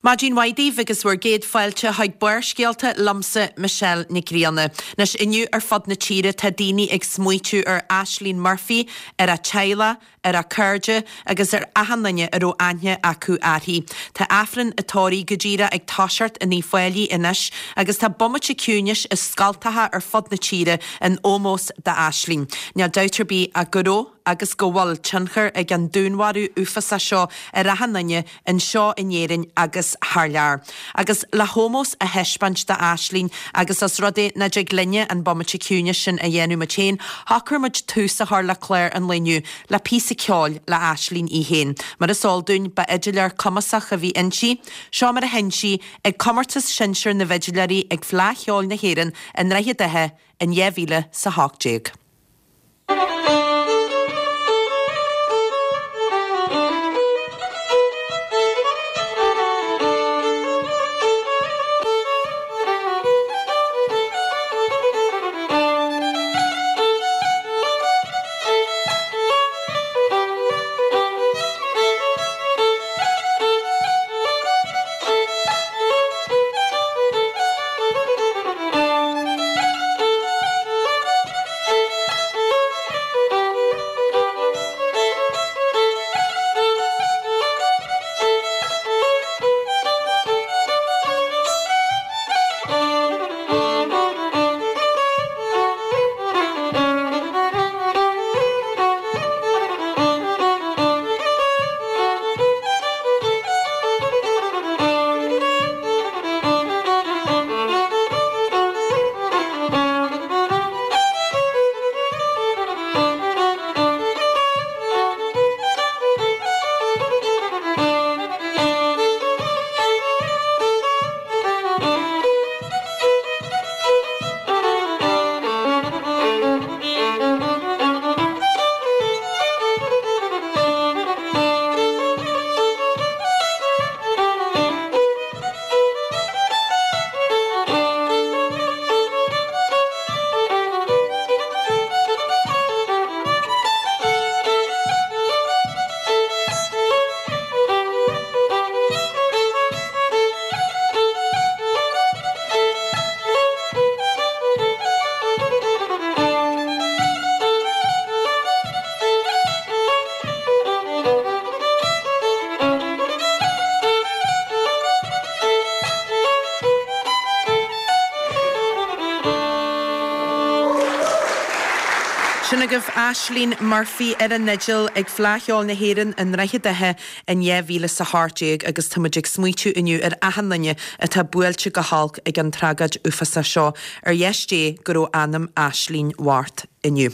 Maidin mhaith daoibh agus bhur gcéad fáilte chuig Barrscéalta liomsa Michelle Nic Grianna. Anois inniu ar fud na tíre tá daoine ag smaoitiú ar Ashling Murphy, ar a teaghlach, ar a cairde agus ar achan duine a raibh aithne acu uirthi. Tá Aifreann a tórraimh go díreach ag toiseacht in Uíbh Fhailí anois agus tá bomaite ciúinis i scoltacha ar fud na tíre in ómós d'Ashling. Níl dabht ar bith ach go raibh agus go bhfuil tionchar ag an dúnmharú uafásach seo ar achan duine anseo in Éirinn agus thar lear. Agus le hómós a thaispeáint d'Ashling agus os rud é nach dtig linne an bomaite ciúinis sin a dhéanamh muid féin, shocraigh muid tús a chur le clár an lae inniu le píosa ceoil le Ashling í féin. Mar is eol dúinn, ba fhidiléir cumasach a bhí inti. Seo mar a sheinn sí ag Comórtas Sinsear na bhFidiléirí ag Fleadh Cheoil na hÉireann i nDroichead Átha in 2018. Sin agaibh Ashling Murphy ar an fhidil ag Fleadh Cheoil na hÉireann i nDroichead Átha in 2018 agus tá muid ag smaoitiú inniu ar achan duine atá buailte go holc ag an tragóid uafásach seo. Ar dheis Dé go raibh anam Ashling mhart. inniu.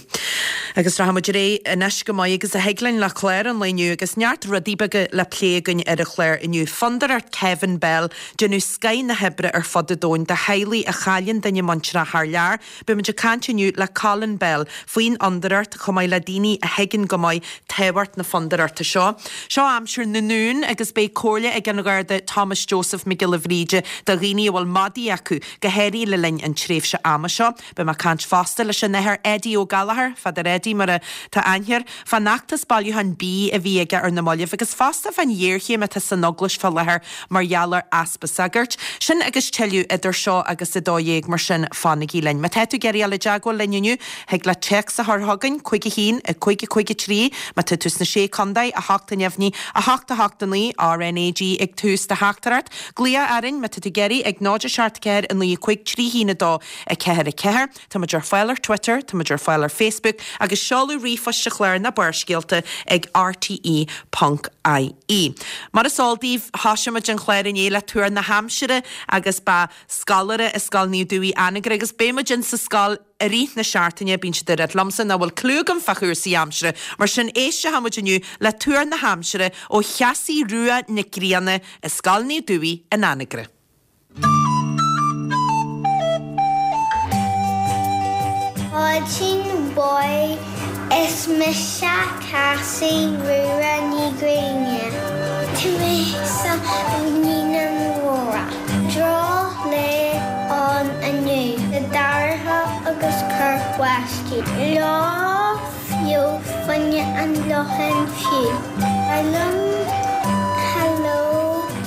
Agus rachaidh muid ar aghaidh anois go maith agus a thig linn le clár an lae inniu agus neart rudaí beaga le plé againn ar an chlár inniu. Fondúireacht Kevin Bell, déanamh scoith na hoibre ar fud an domhain do theaghlaigh a chailleann duine muinteartha thar lear. Beidh muid ag caint inniu le Colin Bell faoin fhondúireacht chomh maith le daoine a thuigeann go maith tábhacht na fondúireachta seo. Seo aimsir na nDún agus beidh comhairle ag an Gharda Thomas Joseph Mac Giolla Bhríde do dhaoine a bhfuil madaí acu, go háirithe le linn an tréimhse ama seo. Beidh mé ag caint fosta leis an Athair Eddie Ó Gallchóir, Father Eddie mar atá aithne air, fán fheachtas bailiúcháin bídh a bhí aige ar na mallaibh agus fosta fán ghéarchéim atá san Eaglais fá láthair mar gheall ar easpa sagairt. Sin agus tuilleadh idir seo agus 12:00 mar sin fanaigí linn. Má tá tú ag iarraidh dul i dteagmháil linn inniu, thig leat téacs a chur chugainn, 5 1 5 5 3, má tá tú sna Sé Contae, 8 neamhní, 8 8 9, RNAG ag tús do theachtaireacht. Glaoch orainn má tá tú ag iarraidh ag 0 7 4 9 5 3 1 2. 4 4. Tá muid ar fáil ar Twitter, tá muid ar fáil ar Facebook agus seoladh ríomhphoist an chláir ná Barrscéalta ag rte ponc ie. Mar is eol daoibh, thosaigh muid an chlár inné le tuar na haimsire agus ba scoláire i Scoil Naomh Dubhaigh Anagaire agus beidh muid in sa scoil i rith na seachtaine, bíonn siad ag rá liomsa nach bhfuil cliú agam fá chúrsaí aimsire, mar sin éistfidh muid inniu le tuar na haimsire ó Chassie Rua Nic Grianna i Scoil Naomh Dubhaigh in Anagaire. Maidin mhaith, is mise Cassie Rua Ní Ghrianna. Tá mé sa Naíonáin Mhóra. Droch-lá ann inniu, le dorcha agus cur báistí. Lá fiú fuinne an locháin fiú. Ba mhaith liom hello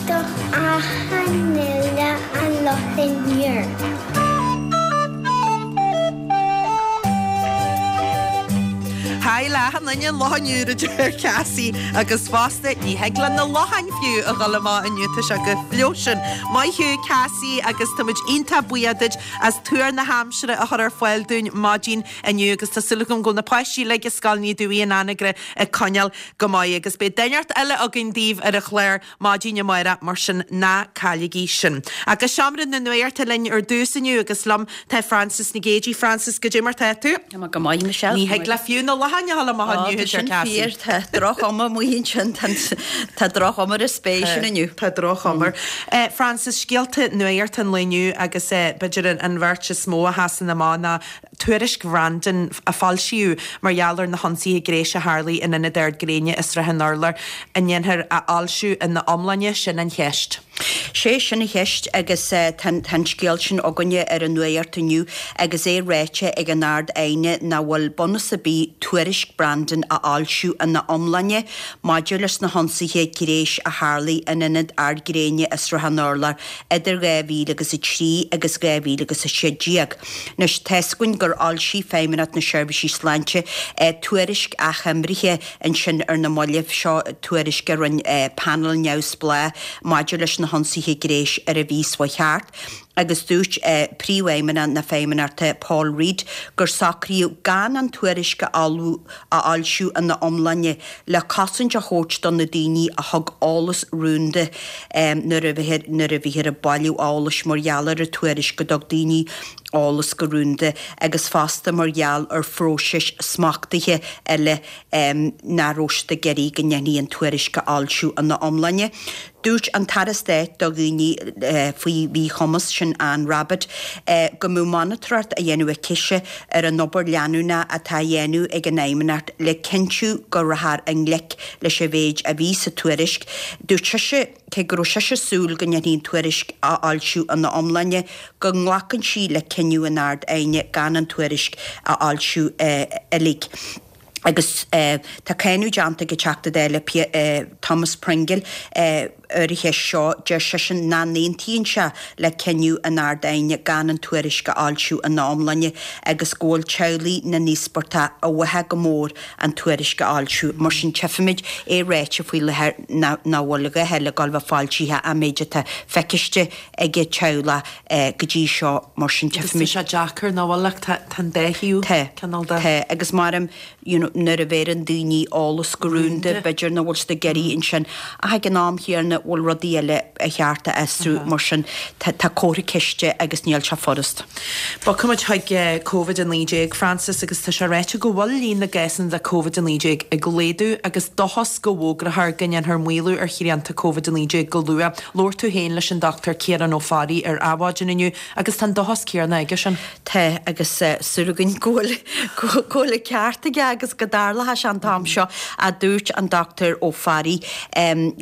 do achan. achan uile an Locháin Úr. Haigh le achan duine an Locháin Úr a deir Cassie agus fosta ní thig le na locháin fiú a dhul amach inniu tá sé chomh fliuch sin. Maith thú Cassie agus tá muid iontach buíoch duit as tuar na haimsire a chur ar fáil dúinn maidin inniu agus tá súil agam go bhfuil na páistí uilig i Scoil Naomh Dubhaí in Anagaire ag coinneáil go maith agus beidh duine inteacht eile againn daoibh ar an chlár maidin amárach, mar sin ná cailligí sin. Ach go seomra na nuachta linn ar dtús inniu agus liom tá Frances Nic Géadaigh. Frances, goidé mar tá tú? Tá mé go maith, Michelle. Ní thig le fiú na locháin a dhul amach inniu, a deir Cassie. Tá sin fíor, tá droch-chuma amuigh ansin, tá droch-chuma ar an spéir sin inniu. Tá droch-chuma. Frances, scéalta nuachta an lae inniu agus b'fhéidir an bheirt is mó a sheasann amach ná Tuairisc Bhrandon a foilsíodh mar gheall ar na hionsaithe gnéis a tharlaigh in Ionad Ard Gréine i Srath an Urláir, an ndéanfar a fhoilsiú ina iomláine, sin an cheist. Sé sin an cheist agus tá an scéal sin againne ar an nuacht inniu agus é ráite ag an Ard-Aighne nach bhfuil bunús ar bith tuairisc Brandon a fhoilsiú ina iomláine maidir leis na hionsaithe gnéis a tharlaigh in Ionad Ard Gréine i Srath an Urláir idir 2000 agus 3 agus 2000 agus 16. Anois, tá's againn gur fhoilsigh Feidhmeannacht na Seirbhísí Sláinte tuairisc achoimrithe ansin ar na mallaibh, seo tuairisc a rinne panel neamhspleách maidir leis na hionsaithe gnéis ar a bhí seo thart, agus dúirt Príomhfheidhmeannach na Feidhmeannachta Paul Reid gur socraíodh gan an tuairisc a fhoilsiú ina iomláine le cosaint a thabhairt do na daoine a thug eolas rúnda nuair a bhíthear ag bailiú eolais mar gheall ar an tuairisc go dtug daoine eolas go rúnda agus fosta mar gheall ar phróisis smachtaithe eile nach raibh siad ag iarraidh go ndéanfaí an tuairisc a fhoilsiú ina iomláine. Dúirt an tAire Stáit do dhaoine faoi mhíchumas, sin Anne Rabbitte, go mbeadh monatóireacht á dhéanamh aicise ar an obair leanúnach atá á dhéanamh ag an Fheidhmeannacht le cinntiú go rachfar i ngleic leis an mhéid a bhí sa tuairisc. Dúirt sise, cé go raibh sise ag súil go ndéanfaí an tuairisc a fhoilsiú ina iomláine, go nglacann sí le cinneadh an Ard-Aighne gan an tuairisc a fhoilsiú uilig. Agus tá cáineadh déanta ag an Teachta Dála Thomas Pringle ar an cheist seo. Deir seisean nach n-aontaíonn sé le cinneadh an Ard-Aighne gan an tuairisc a fhoilsiú ina iomláine agus go bhfuil teaghlaigh na n-íospartach i bhfathach go mór an tuairisc a fhoilsiú. Mar sin tchífimid é ráite faoi láthair nach bhfuil a dhath eile ag dul a bheith foilsithe an méid atá feiciste ag an teaghlach go dtí seo mar sin Agus tá sé deacair nach bhfuil ach tá an dá thaobh Tá, cineál de. tá agus maram you know nuair a bheireann daoine eolas go rúnda b'fhéidir nach bhfuil siad ag iarraidh ansin ach ag an am chéanna bhfuil rudaí eile ar cheart a fhiosrú mar sin tá tá comhartha ceiste agus níl sé furast. Bogfaimid chuig Covid-19, Frances, agus tá sé ráite go bhfuil líon na gcásanna de Covid-19 ag laghdú agus dóchas go bhfógrófar go ndéanfar maolú ar shrianta Covid-19 go luath. Labhair tú féin leis an Dr Ciarán Ó Fearraigh ar Adhmhaidin inniu agus tá an dóchas céanna aigesean. Tá, agus súil againn go bhfuil, go bhfuil an ceart aige agus go dtarlóidh sé an t-am seo, a dúirt an Dr Ó Fearraigh,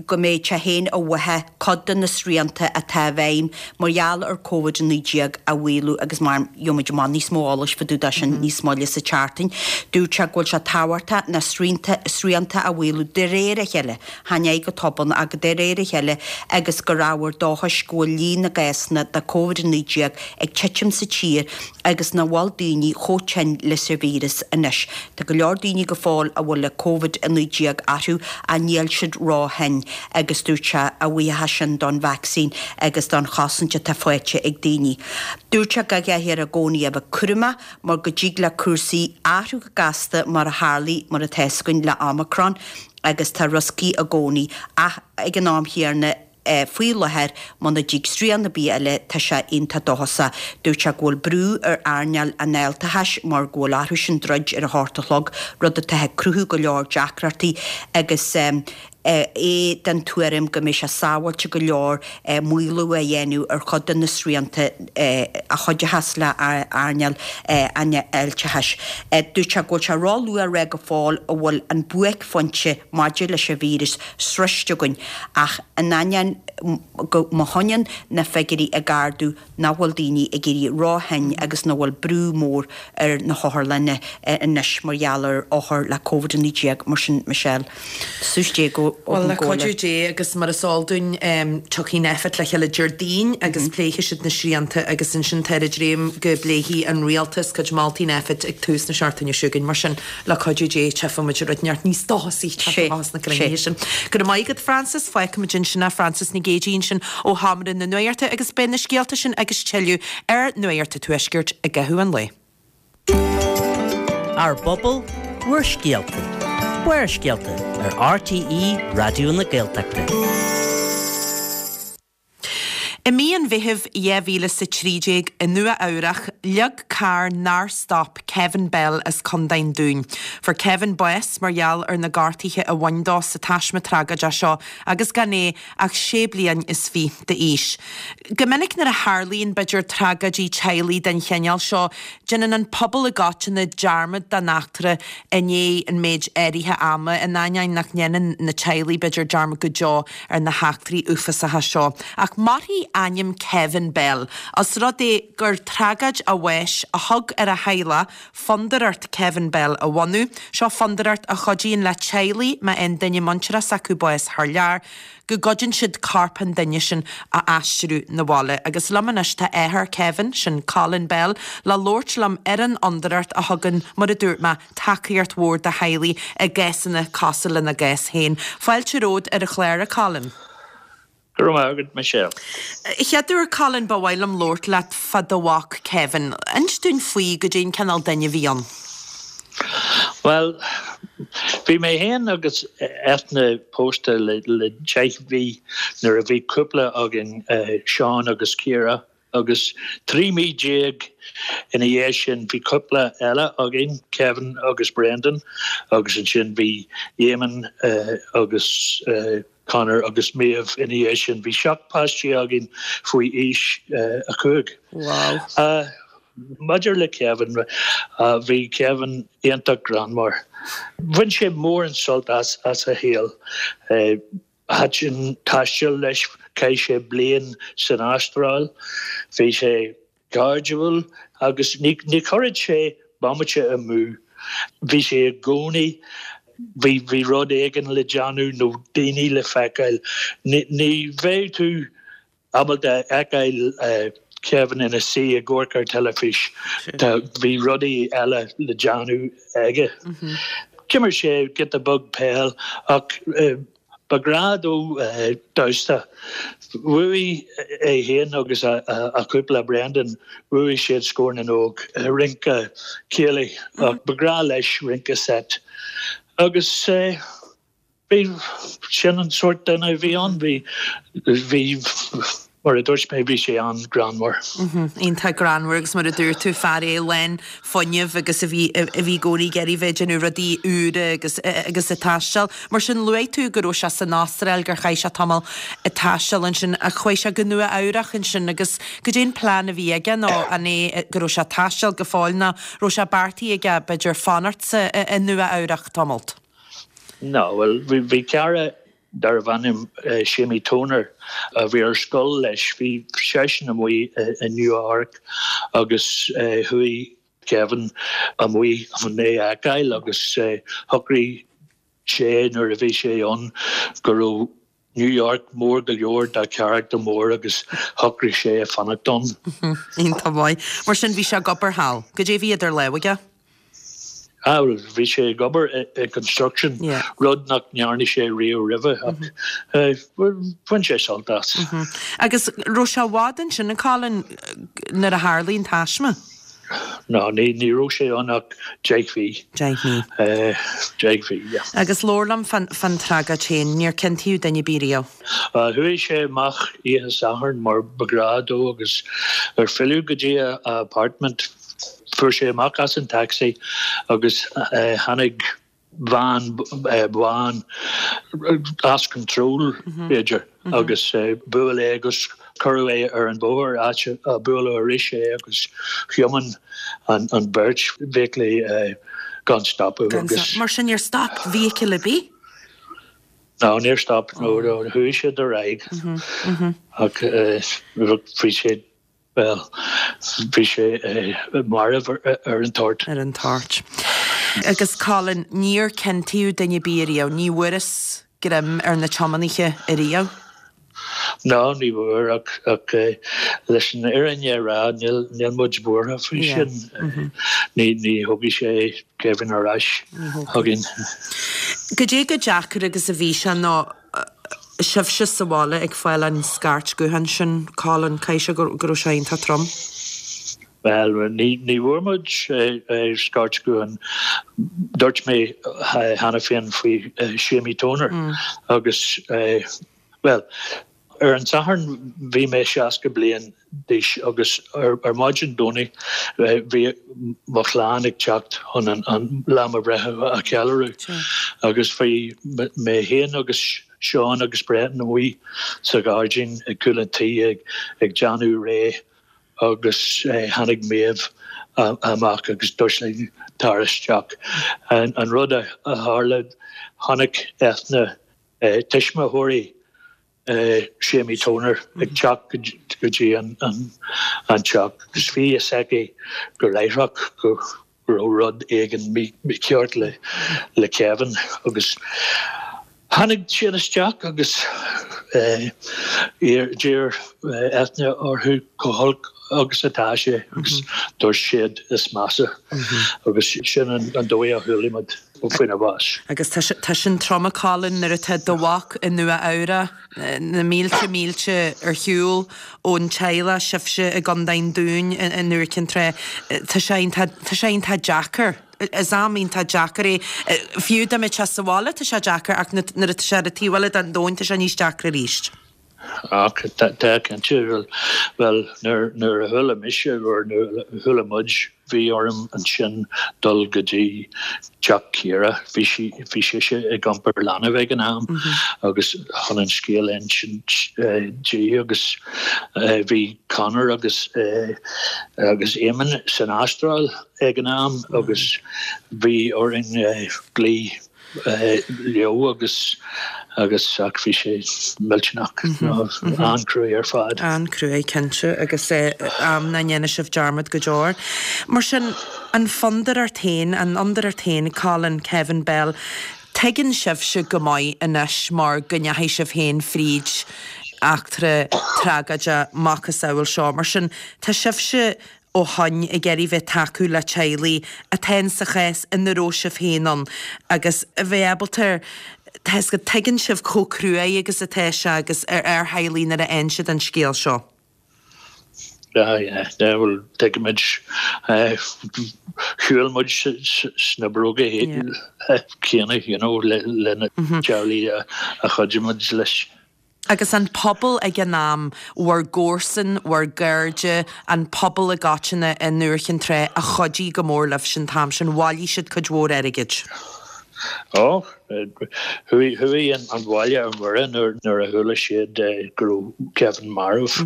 go mbeadh sé féin i bhfathach cuid de na srianta atá i bhfeidhm mar gheall ar Covid-19 a mhaolú agus mar gheobhaimid amach níos mó eolais fá dtaobh de sin níos moille sa tseachtain. Dúirt sé go bhfuil sé tábhachtach na srianta a mhaolú de réir a chéile. Chan é go tobann ach de réir a chéile agus gur ábhar dóchais go bhfuil líon na gcásanna de Covid-19 ag titim sa tír agus nach bhfuil daoine chomh tinn leis an víreas anois. Tá go leor daoine go fóill a bhfuil Covid-19 orthu ach níl siad ró-thinn agus dúirt sé a bhuíochas sin don vacsaín agus don chosaint atá faighte ag daoine. Dúirt sé go gcaithfear i gcónaí a bheith cúramach mar go dtig le cúrsaí athrú go gasta mar a tharlaigh mar atá 'fhios againn le Omicron. agus tá rioscaí i gcónaí ach ag an am chéanna faoi láthair muna dtig srian ar bith eile tá sé iontach dóchasach. Dúirt sé go bhfuil brú ar earnáil an fháilteachais mar go bhfuil orthusan druid ar a hocht a chlog, rud atá ag cruthú go leor deacrachtaí agus é den tuairim go mbeidh sé sábháilte go leor maolú a dhéanamh ar chuid de na srianta a chuideochas le hearnáil an fháilteachais. Dúirt sé go bhfuil sé ró-luath a rá go fóill an bhfuil an buaicphointe maidir leis an víreas sroiste againn ach in ainneoin go má choinníonn na figiúirí ag ardú nach bhfuil daoine ag éirí ró-thinn agus nach bhfuil brú mór ar na hotharlanna anois mar gheall ar othair le Covid-19 mar sin Michelle. Suas Dé go. Bhuel, le cuidiú Dé agus mar is eol dúinn, tiocfaidh Nphet le chéile Déardaoin agus pléifidh siad na srianta agus ansin táthar ag dréim go bpléifidh an rialtas cuid moltaí Nphet ag tús na seachtaine seo chugainn. Mar sin, le cuidiú Dé, tchífidh muid rud inteacht níos dóchasaí teacht amach as na cruinnithe sin. Go raibh maith agat, Frances. Fágfaidh muid ansin é, Frances Nic Géadaigh ansin ó Sheomra na Nuachta agus beidh na scéalta sin agus tuilleadh ar Nuacht an Tuaiscirt i gcaitheamh an lae. Ár bpobal, bhur scéalta. Barrscéalta ar RTÉ Raidió na Gaeltachta. I mí an Mheithimh 2013 i Nua Eabhrach, leag carr nár stop Kevin Bell as Contae an Dúin. Fuair Kevin bás mar gheall ar na gortuithe a bhain dó sa taisme tragóideach seo agus gan é ach sé bliain is fiche d'aois. Go minic nuair a tharlaíonn, b'fhéidir, tragóidí teaghlaigh den chineál seo, déanann an pobal i gcoitinne dearmad den eachtra i ndiaidh an méid áirithe ama, in ainneoin nach ndéanann na teaghlaigh, b'fhéidir, dearmad go deo ar na heachtraí uafásacha seo. Ach mairfidh ainm Kevin Bell, os rud é gur tragóid a bháis a thug ar a theaghlach Fondúireacht Kevin Bell a bhunú. Seo fondúireacht a chuidíonn le teaghlaigh má fhaigheann duine muinteartha s'acu bás thar lear, go gcuidíonn siad corp an duine sin a aistriú 'na bhaile. Agus liom anois tá athair Kevin, sin Colin Bell, le labhairt liom ar an fhondúireacht a thugann, mar a dúirt mé, tacaíocht mhór do theaghlaigh i gcásanna cosúil lena gcás féin. Fáilte romhat ar an chlár, a Colin. Go raibh maith agat, Michelle. Chéad uair, Colin, ba mhaith liom labhairt leat fá do mhac Kevin. Inis dúinn faoi, goidé an cineál duine a bhí ann. Bhuel, bhí mé féin agus Eithne pósta le deich mhí nuair a bhí cúpla againn, Seán agus Ciara, agus 13 mí ina dhiaidh sin bhí cúpla eile againn, Kevin agus Brendan, agus ansin bhí Eamon agus Conor agus Maeve ina dhiaidh sin. Bhí 7 páistí againn faoi aois 5. Wow. Maidir le Kevin, bhí Kevin iontach greannmhar. Bhain sé mórán sult as a shaol. Thaitin taisteal leis, chaith sé bliain san Astráil. Bhí sé cairdiúil agus ní chuirfeadh sé bomaite amú. Bhí sé i gcónaí, bhí, bhí rud éigin le déanamh nó daoine le feiceáil. Ní bheadh tú ábalta a fheiceáil Kevin ina suí ag amharc ar teilifís. Bhí rudaí eile le déanamh aige. D'imir sé giota beag peil ach Ba ghrá dó damhsa. Bhuaigh é féin agus a chúpla, Brendan, bhuaigh siad Scór na nÓg, rince céilí, ach ba ghrá leis rince seit. Agus bhí, sin an sórt duine a bhí ann. Bhí, bhí. Mar a dúirt mé, bhí sé an-ghreannmhar. Iontach greannmhar agus mar a dúirt tú, fear é lán fuinnimh agus a bhí a bhí i gcónaí ag iarraidh bheith ag déanamh rudaí úra agus agus ag taisteal. Mar sin, luaigh tú go raibh sé san Astráil, gur chaith sé tamall ag taisteal ansin ach chuaigh sé go Nua Eabhrach ansin agus goidé an plean a bhí aige nó an é go raibh sé ag taisteal go fóill nó raibh sé beartaithe aige b'fhéidir fanacht sa i Nua Eabhrach tamalt? No, bhuel, bhí cara darbh ainm Séimí Toner a bhí ar scoil leis. Bhí seisean amuigh i Nua Eabhrac agus chuaigh Kevin amuigh chun é a fheiceáil agus shocraigh sé nuair a bhí sé ann go raibh New York mór go leor dá charachtar mór agus shocraigh sé fanacht ann. Iontach maith. Mar sin bhí sé ag obair thall. Goidé a bhí idir lámha aige? Ah, bhuel, bhí sé ag obair i construction, rud nach ndearna sé riamh roimhe, ach bhain sé sult as. Agus raibh sé i bhfad ansin, a Colin, nuair a tharlaigh an taisme? No, ní ní raibh sé ann ach deich mhí. Deich mí. Deich mhí, yeah. Agus labhair liom fán fán tragóid féin, níor ciontaíodh duine ar bith riamh? Chuaigh sé amach oíche Sathairn mar ba ghnáth dó agus ar filleadh go dtí a apartment, Fuair sé amach as an taxi agus tháinig veain bhán as control, b'fhéidir, agus bhuail é agus cuireadh é ar an bhóthar, áit a buaileadh arís é agus thiomáin an bheirt feithiclí gan stopadh agus. Mar sin níor stop vehicle ar bith? No, níor stop, no, chuaigh siad ar aghaidh ach bhí siad Bhuel, bhí sé marbh ar an toirt. Ar an toirt. Agus Colin, níor ciontaíodh duine ar bith ariamh, ní bhfuarthas. greim ar na tiománaithe ariamh. No, ní bhfuair ach ach leis an fhírinne a rá níl níl muid buartha faoi sin. Ní ní thógfaidh sé Kevin ar ais chugainn. Goidé chomh deacair agus a bhí sé nó sibhse sa bhaile ag fáil an scairt gutháin sin, Colin, caithfidh sé go raibh sé iontach trom. Bhuel, ní ní bhfuair muid scairt gutháin. Dúirt mé cheana féin faoi Séimí Toner agus, bhuel, ar an Satharn bhí mé 60 bliain d'aois agus ar maidin Domhnaigh bhí mo chlann ag teacht chun an lá mo bhreithe a cheiliúradh agus bhí mé féin agus Seán agus Brendan amuigh sa ghairdín ag cúl an tí ag déanamh réidh agus tháinig Méabh amach agus dúirt linn tar isteach. An rud a tharla, chonaic Eithne tuismitheoirí Séimí Toner ag teacht go dtí an teach agus bhí fhios aici go láithreach go raibh rud éigin mícheart le Kevin agus tháinig siad isteach agus d'iarr Eithne orthu chomh holc agus atá sé agus dúirt siad is measa agus sin an dóigh a chuala muid faoina bhás. Agus tá sin trom a Colin nuair atá do mhac i Nua Eabhrac, na mílte mílte ar shiúl ón teaghlach, sibhse i gContae an Dúin i nDúiche Chinn Trá. Tá sé iontach, tá sé iontach deacair. Is am iontach deacair é. Fiú dá mbeadh sé sa bhaile tá sé deacair ach nuair atá sé ar an taobh eile den domhan tá sé níos deacra arís. Ach tá cinnte, bhuel, nuair a chuala mise, or nuair a chuala muid, bhí orm ansin dul go dtí teach Ciara, bhí sí, bhí sise ag iompar leanbh ag an am agus chun an scéal a insint di agus bhí Conor agus agus Eamon san Astráil ag an am agus bhí orainn glaoch leo agus agus ach bhí sé millteanach, an-cruaidh ar fad. An-cruaidh, cinnte, agus am nach ndéanfaidh sibh dearmad go deo. Mar sin, an fhondúireacht féin, an fhondúireacht féin, Colin, Kevin Bell, tuigeann sibhse go maith anois mar go ndeachaigh sibh féin fríd eachtra tragóideach macasamhail seo. Mar sin, tá sibhse ó shoin ag iarraidh bheith tacú le teaghlaigh atá in sa chás ina raibh sibh féin ann agus a bheith ábalta tá 'fhios agat tuigeann sibh chomh cruaidh agus atá sé agus ar ar theaghlaigh nuair a fhaigheann siad an scéal seo. Yeah, yeah, yeah, well, tuigimid, shiúil muid sna bróga céanna, you know, le na teaghlaigh a chuidigh muid leis. Agus an pobal ag an am, bhur gcomharsain, bhur gcairde, an pobal i gcoitinne i nDúiche Chinn Trá a chuidigh go mór libhse an t-am sin, bhailigh siad cuid mhór airgid. Ó, chuaigh, chuaigh an baile ar mire nuair a chuala siad go raibh Kevin marbh.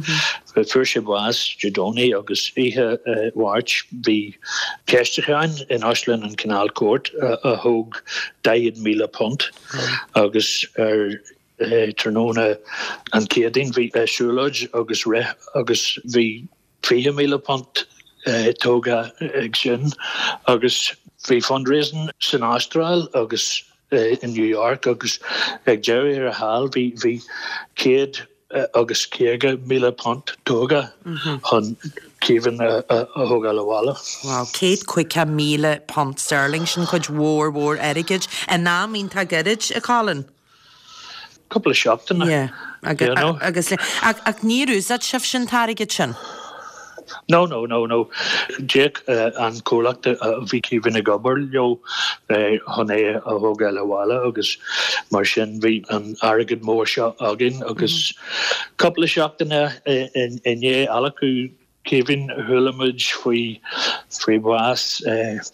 Fuair sé bás Dé Domhnaigh agus oíche Mháirt bhí ceistiúcháin in Óstlann an Canal Court a thóg £40,000 agus ar Tráthnóna an Chéadaoin bhí siúlóid agus rith agus bhí £20,000 tógtha ag sin agus bhí fundraising san Astráil agus i New York agus ag deireadh thiar thall bhí bhí £150,000 tógtha chun Kevin a thógáil abhaile. Wow, £150,000 sterling, sin cuid mhór mhór airgid in am iontach gairid, a Colin. Cúpla seachtaine. Yeah. You know? Agus ach, ach níor úsáid sibhse an t-airgead sin? No, no, no, no. D'íoc an comhlacht a bhí Kevin ag obair leo chun é a thógáil abhaile agus mar sin bhí an airgead mór seo againn agus cúpla seachtaine i ndiaidh adhlacadh Kevin, Chuala muid faoi faoi bhás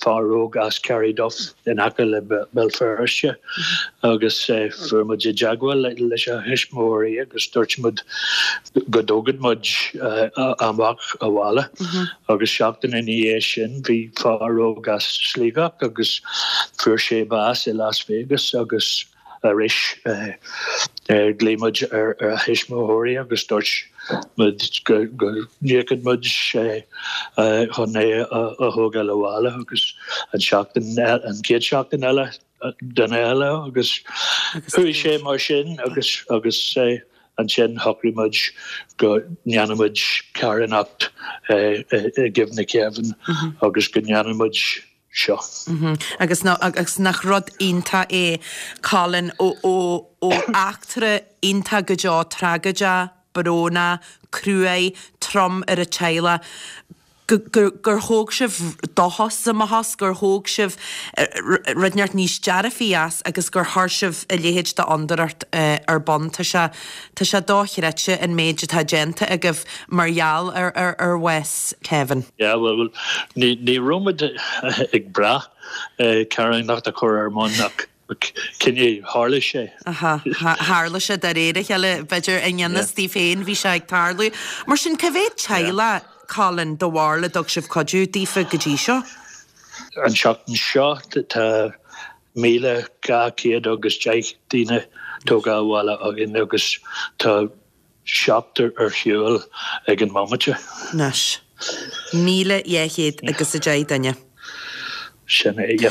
fear óg as Carryduff in aice le Béal Feirste agus fuair muid i dteagmháil leis a thuismitheoirí agus dúirt muid go dtógfadh muid a mhac abhaile agus seachtain ina dhiaidh sin bhí fear óg as Sligeach agus fuair sé bás i Las Vegas agus Arís, ghlaoigh muid ar a thuismitheoirí agus dúirt muid go n-íocfadh muid chun é a thógáil abhaile agus an seachtain, an chéad seachtain eile. duine eile agus chuaigh sé mar sin agus agus ansin shocraigh muid go ndéanfaidh muid carthanacht i gcuimhne Kevin agus go ndéanfaidh muid seo. Agus agus nach rud iontach é Colin ó ó ó eachtra iontach go deo tragóideach, brónach, cruaidh, trom ar an teaghlach, go, gur, gur thóg sibh dóchas amach as, gur thóg sibh rud inteacht níos dearfaí as agus gur chuir sibh a leithéid d'fhondúireacht ar bun. Tá sé, tá sé dochreidte an méid atá déanta agaibh mar gheall ar, ar, ar bhás Kevin. Yeah, bhuel, ní, ní raibh muid ag brath carthanacht a chur ar bun ach cineál tharla sé. Aha, tharla sé de réir a chéile, b'fhéidir i ngan fhios daoibh féin bhí sé ag tarlú. Mar sin, cá mhéad teaghlach, Colin, do bharúil a dtug sibh cuidiú daofa go dtí seo? An tseachtain seo tá 1,210 daoine tógtha abhaile againn agus tá seachtar ar shiúl ag an mbomaite. Anois. 1,210 duine. Sin é, yeah.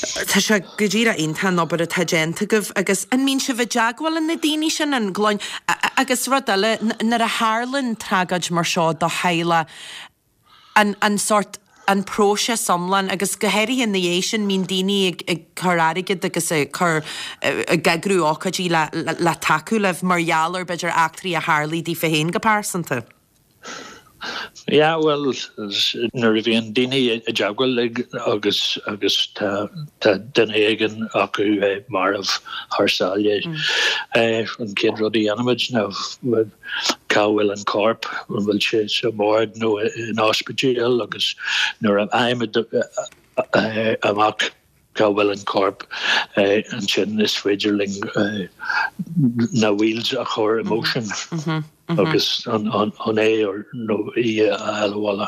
Tá sé go díreach iontach an obair atá déanta agaibh agus an mbíonn sibh i dteagmháil le na daoine sin, an gclann, agus rud eile, nuair a tharlaíonn tragóid mar seo do theaghlach, an, an sórt, an próiseas iomlán agus go háirithe ina dhiaidh sin mbíonn daoine ag, ag cur airgead agus ag cur, ag eagrú ócáidí le, le tacú libh mar gheall ar b'fhéidir eachtraí a tharlaigh daofa féin go pearsanta. Yeah, bhuel, nuair a bhíonn daoine i dteagmháil linn agus agus tá tá duine éigin acu marbh thar sáile, an chéad rud a dhéanaimid ná cá bhfuil an corp, an bhfuil sé sa morgue nó in ospidéal agus nuair a fhaighimid amach cá bhfuil an corp, ansin is féidir linn na wheels a chur i motion agus an é nó í a fháil abhaile.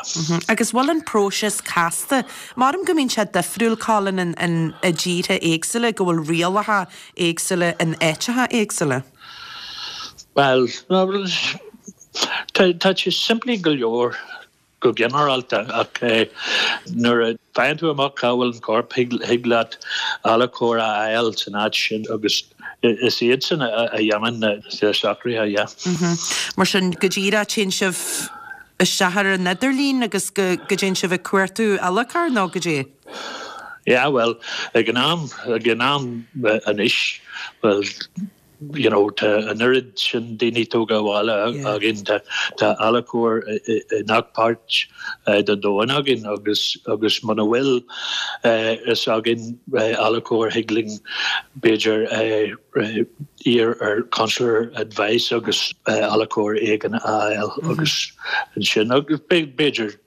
Agus bhfuil an próiseas casta? Maram go mbíonn sé difriúil, Colin, i dtíortha éagsúla, go bhfuil rialacha éagsúla in áiteacha éagsúla. Bhuel, tá sé simplí go leor. Go ginearálta, ach nuair a faigheann tú amach cá bhfuil an corp, thig leat adhlacóir a fháil san áit sin agus is iadsan a dhéanann na socruithe, yeah. Mar sin, go díreach, téann sibh isteach ar an idirlíon agus go dtéann sibh ag cuartú adhlacóir nó goidé? Yeah, bhuel, ag an am, ag an am anois, bhuel, you know tá an oiread sin daoine tógtha abhaile againn, tá tá adhlacóir i ngach páirt den domhan againn agus agus muna bhfuil fhios againn adhlacóir thig linn b'fhéidir iarr ar consular advice agus adhlacóir éigin a fháil agus ansin agus b'fhéidir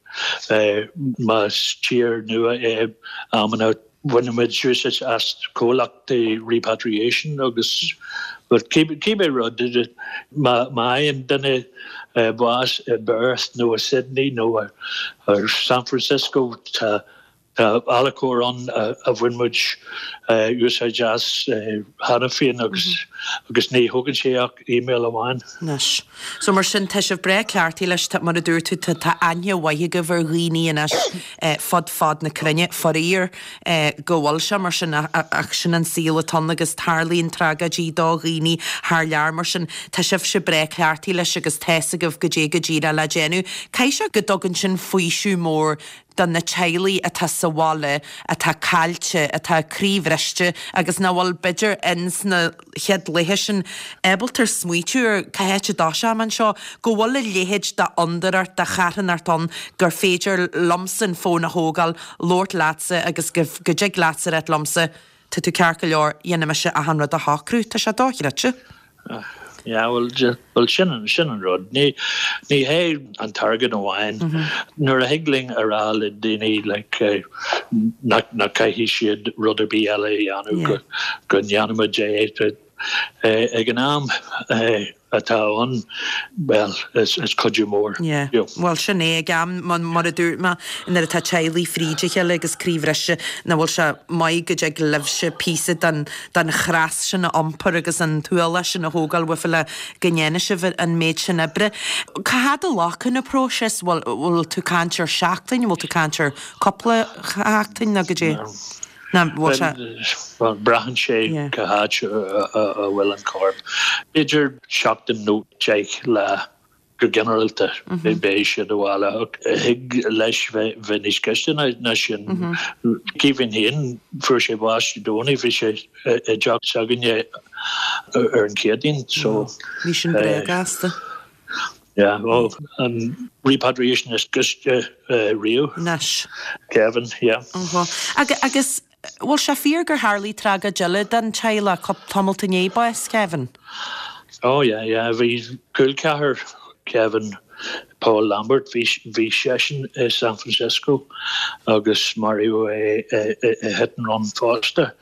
más tír nua é amanna Bhainimid úsáid as comhlachtaí repatriation agus but cibé rud, má fhaigheann duine bás i bPerth nó i Sydney nó i San Francisco tá adhlacóir ann a bhain muid úsáid as cheana féin agus agus ní thógann sé ach email amháin. Anois. So mar sin tá sibh breá cleachtaithe leis, tá, mar a dúirt tú, tá, tá aithne mhaith agaibh ar dhaoine anois fud fad na cruinne, faraor go bhfuil sé mar sin ach sin an saol atá ann agus tarlaíonn tragóidí do dhaoine thar lear mar sin tá sibhse breá cleachtaithe leis agus tá's agaibh goidé go díreach le déanamh. Caithfidh sé go dtugann sin faoiseamh mór do na teaghlaigh atá sa bhaile, atá caillte, atá croíbhriste agus nach bhfuil b'fhéidir ins na chéad laetha sin ábalta smaoitiú ar cá háit a dtoiseoidh mé anseo, go bhfuil a leithéid d'fhondúireacht, de charthanacht ann gur féidir liomsa an fón a thógáil, labhairt leatsa agus go dtig leatsa a ráit liomsa, tá tú ceart go leor, dhéanfaidh mise achan rud a shocrú. Tá sé dochreidte. Yeah, bhuel, bhuel sin, sin an rud. Ní, ní hé an t-airgead amháin. Nuair a thig linn a rá le daoine like, nach, nach caithfidh siad rud ar bith eile a dhéanamh, go, go ndéanfaimid é. Ag an am atá ann, bhuel, is, is cuidiú mór. Yeah. Bhuel, sin é, ag am, mar a dúirt mé, nuair atá teaghlaigh fríd a chéile agus croíbhriste, nach bhfuil sé maith go dtig libhse píosa den, den chreas sin a iompar agus an t-ualach sin a thógáil uafa le go ndéanfaidh sibh an méid sin oibre. Cá fhad a ghlacann an próiseas? Bhfuil, bhfuil tú ag caint ar seachtain, bhfuil tú ag caint ar cúpla seachtain nó goidé? Ná bhfuil sé. Bhuel, braitheann sé cá háit a bhfuil an corp. B'fhéidir seachtain nó 10 lá go ginearálta beidh siad abhaile ach thig leis bheith níos gaiste ná sin. Kevin féin, fuair sé bás Dé Domhnaigh, bhí sé i dteach s'againne ar an Chéadaoin so. Bhí sin breá gasta. Yeah, oh, an repatriation is gaiste riamh. Anois. Kevin, yeah. Agus bhfuil sé fíor gur tharlaigh tragóid eile don teaghlach tamalt i ndiaidh bás Kevin? Oh yeah, yeah, bhí col ceathar Kevin, Paul Lambert, bhí bhí seisean i San Francisco agus maraíodh é i hit and run fosta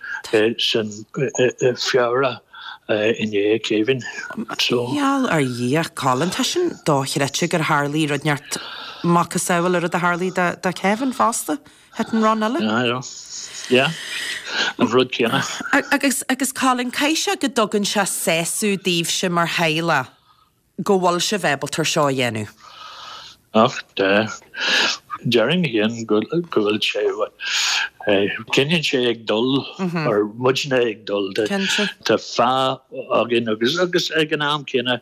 san i Feabhra. i ndiaidh Kevin. So. Gheall ar Dhia, Colin, tá sin dochreidte gur tharlaigh rud inteacht macasamhail an rud a tharlaigh do Kevin fosta, hit and run eile. Yeah, yeah. Yeah, an rud céanna. Agus, agus Colin, caithfidh sé go dtugann sé sásamh daoibhse mar theaghlach go bhfuil sibh ábalta ar seo a dhéanamh. Ach tá. Déarfainn féin go bhfuil sé, coinníonn sé ag dul, or muidne ag dul. Tá fáth againn agus agus ag an am céanna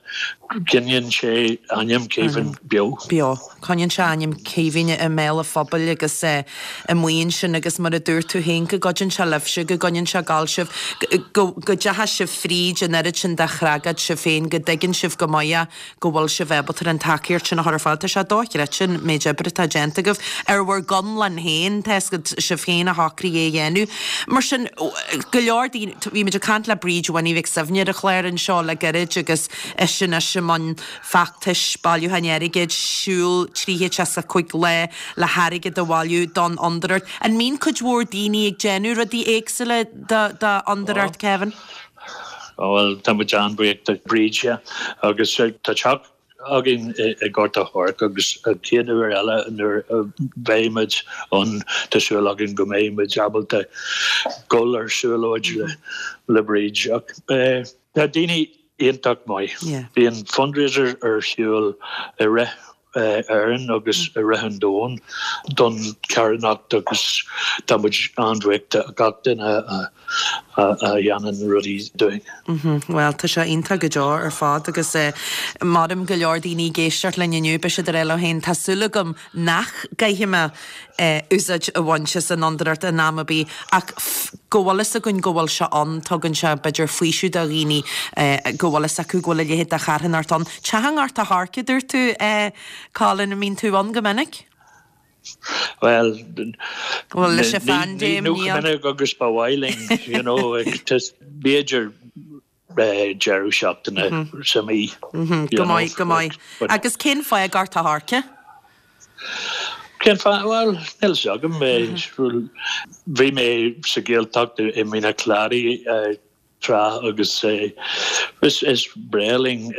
coinníonn sé ainm Kevin beo. Beo. Coinníonn sé ainm Kevin i mbéal an phobail agus amuigh ansin agus mar a dúirt tú féin go gcuidíonn sé libhse, go gcoinníonn sé ag gabháil sibh, go dteachaidh sibh fríd an oiread sin de thragóid sibh féin, go dtuigeann sibh go maith é, go bhfuil sibh ábalta an tacaíocht sin a chur ar fáil. Tá sé dochreidte an méid oibre atá déanta agaibh ar bhur gconlán féin, tá 'fhios agat, sibh féin a shocraigh é a dhéanamh. Mar sin, go leor daoine, bhí muid ag caint le Bríd Winnie Mhic Suibhne ar an chlár anseo le gairid agus ise anois i mbun feachtais bailiúcháin airgid, siúl 365 lá le hairgead a bhailiú don Fhondúireacht. An mbíonn cuid mhór daoine ag déanamh rudaí éagsúla do Fhondúireacht Kevin? Bhuel, tá muid an-bhuíoch de Bríd, yeah. Agus tá teach againn i nGort a' Choirce agus an chéad uair eile nuair a bheidh muid ann tá súil againn go mbeidh muid ábalta dul ar siúlóid le Bríd. Ach tá daoine iontach maith. Bíonn fundraiser ar siúl i rith Éireann agus i rith an domhain don charthanacht agus tá muid an-bhuíoch de gach duine a dhéanann rudaí dúinn. Bhuel, tá sé iontach go deo ar fad agus maram go leor daoine ag éisteacht linn inniu, beidh siad ag rá leo féin, tá súil agam nach gcaithfidh mé úsáid a bhaint as an fhondúireacht in am ar bith ach go bhfuil fhios againn go bhfuil sé ann, tugann sé b'fhéidir faoiseamh do dhaoine go bhfuil fhios acu go bhfuil a leithéid de charthanacht ann. Teach i nGort a' Choirce, a dúirt tú, Colin, an mbíonn tú ann go minic? Bhuel, Bhuel, leis an phaindéim, ní chomh minic agus ba mhaith linn, you know, b'fhéidir deireadh seachtaine sa mhí. Go maith, go maith. Agus cén fáth Gort a' Choirce? Cén fáth? Bhuel, níl fhios agam. Bhí mé sa Ghaeltacht i Mín an Chladaigh tráth agus is breá linn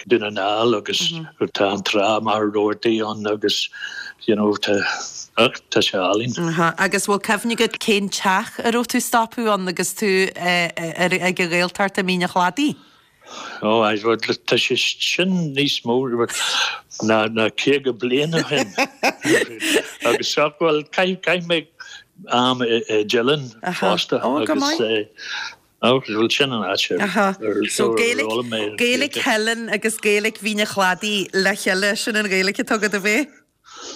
Dún na nGall agus tá an trá Machaire Rabhartaigh ann agus you know tá Ach tá sé álainn. Agus bhfuil cuimhne agat cén teach a raibh tú ag stopadh ann agus tú ag an Ghaeltacht i Mín an Chladaigh? Ó, aye, bhuel, tá sé sin níos mó ná ná 50 bliain ó shin. Agus ach, bhuel, chaith chaith mé am i i dTeileann fosta Ó, go agus maith. ó, bhuel, sin an áit ar Aha. ar So ar Gaeilic, fhoghlaim mé Gaeilic Gaeilge. Theileann agus Gaeilic Mhín an Chladaigh le chéile, sin an Ghaeilic atá agat, ab é?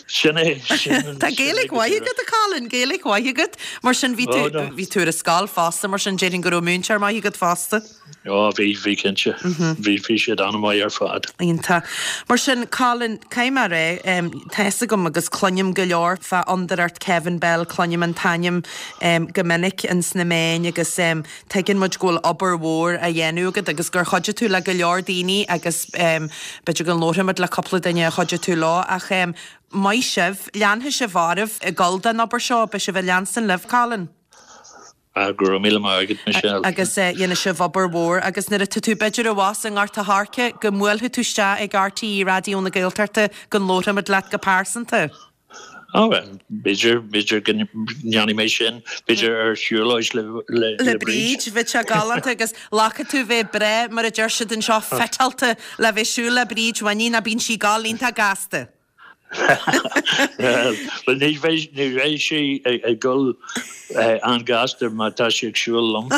Sin é, sin, Tá sin é Gaeilge go mhaith díreach. agat, a Colin, Gaeilge mhaith agat. Mar sin, bhí tú, Ó, no. bhí tú ar an scoil fosta, mar sin, déarfainn go raibh múinteoir maith agat fosta. Ó, bhí, bhí cinnte. Bhí, bhí siad an-mhaith ar fad. Iontach. Mar sin, Colin, caithfidh mé a rá, tá fhios agam agus cluinim go leor fá Fhondúireacht Kevin Bell, cluinim an t-ainm go minic ins na meáin agus Tuigeann muid go bhfuil obair mhór á dhéanamh agat agus gur chuidigh tú le go leor daoine agus b'fhéidir go labharfaimid le cúpla duine a chuidigh tú leo ach maith sibh, leanfaidh sibh oraibh ag dul don obair seo, beidh sibh ag leanstan libh, Colin. Ah, go raibh míle maith agat, Michelle. Agus dhéanfaidh sibh obair mhór agus nuair atá tú b'fhéidir abhus i nGort a' Choirce go mbuailfidh tú isteach ag RTÉ Raidió na Gaeltachta go labharfaimid leat go pearsanta. Ó, bhuel, b'fhéidir, b'fhéidir go ndéanfaidh mé sin, b'fhéidir ar shiúlóid le, le, le le Bríd. Bríd, bheadh sé galánta agus glacfaidh tú bheith breá, mar a deir siad anseo, fiteáilte le bheith ag siúl le Bríd Winnie, ná bíonn sí ag gabháil iontach gasta. Bhuel, ní bheidh, ní bheidh sí ag dul an-ghasta má tá sí ag siúl liom.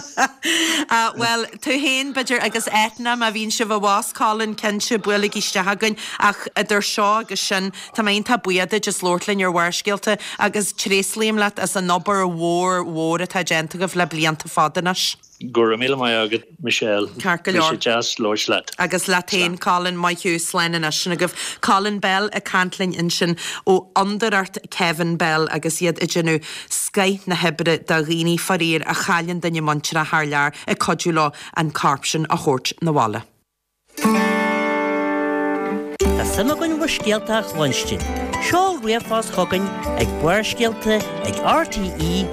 Ah, bhuel, tú féin, b'fhéidir, agus Eithne, má bhíonn sibh abhus, Colin, cinnte, buailigí isteach chugainn. Ach idir seo agus sin, tá mé iontach buíoch duit as labhairt linn ar Bharrscéalta agus tréaslaím leat as an obair mhór mhór atá déanta agaibh le blianta fada anois. Go raibh míle maith agat, Michelle. Ceart go leor. Bhí sé deas labhairt leat. Agus leat féin, Colin. Maith thú. Slán anois. Sin agaibh Colin Bell ag caint linn ansin ó Fhondúireacht Kevin Bell agus iad ag déanamh scoith na hoibre do dhaoine, faraor, a chailleann duine muinteartha thar lear, ag cuidiú leo an corp sin a thabhairt 'na bhaile. Tá suim againn bhur scéalta a chluinstin. Seol ríomhphost chugainn ag barrscéalta ag rte.ie.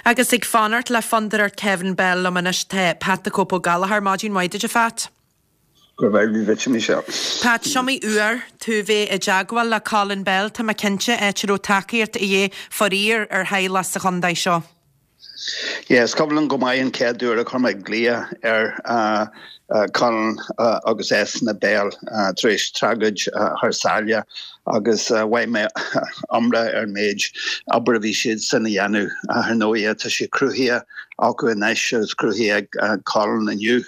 Agus ag fanacht le Fondúireacht Kevin Bell liom anois tá Pat the Cope Ó Gallchóir. Maidin mhaith duit a Phat. Go raibh maith agat Michelle. Pat, s'iomaí uair tú bheith i dteagmháil le Colin Bell, tá mé cinnte, áit a raibh tacaíocht a dhíth faraor ar theaghlach sa chontae seo. Yeah, is cuimhin liom go maith an chéad uair a chuir mé glaoch ar Colin agus Eithne Bell tar éis tragóid thar sáile agus mhaígh mé iomrá ar an méid obair a bhí siadsan a dhéanamh. Ar ndóigh, tá sé cruthaithe acu anois agus cruthaithe ag Colin inniu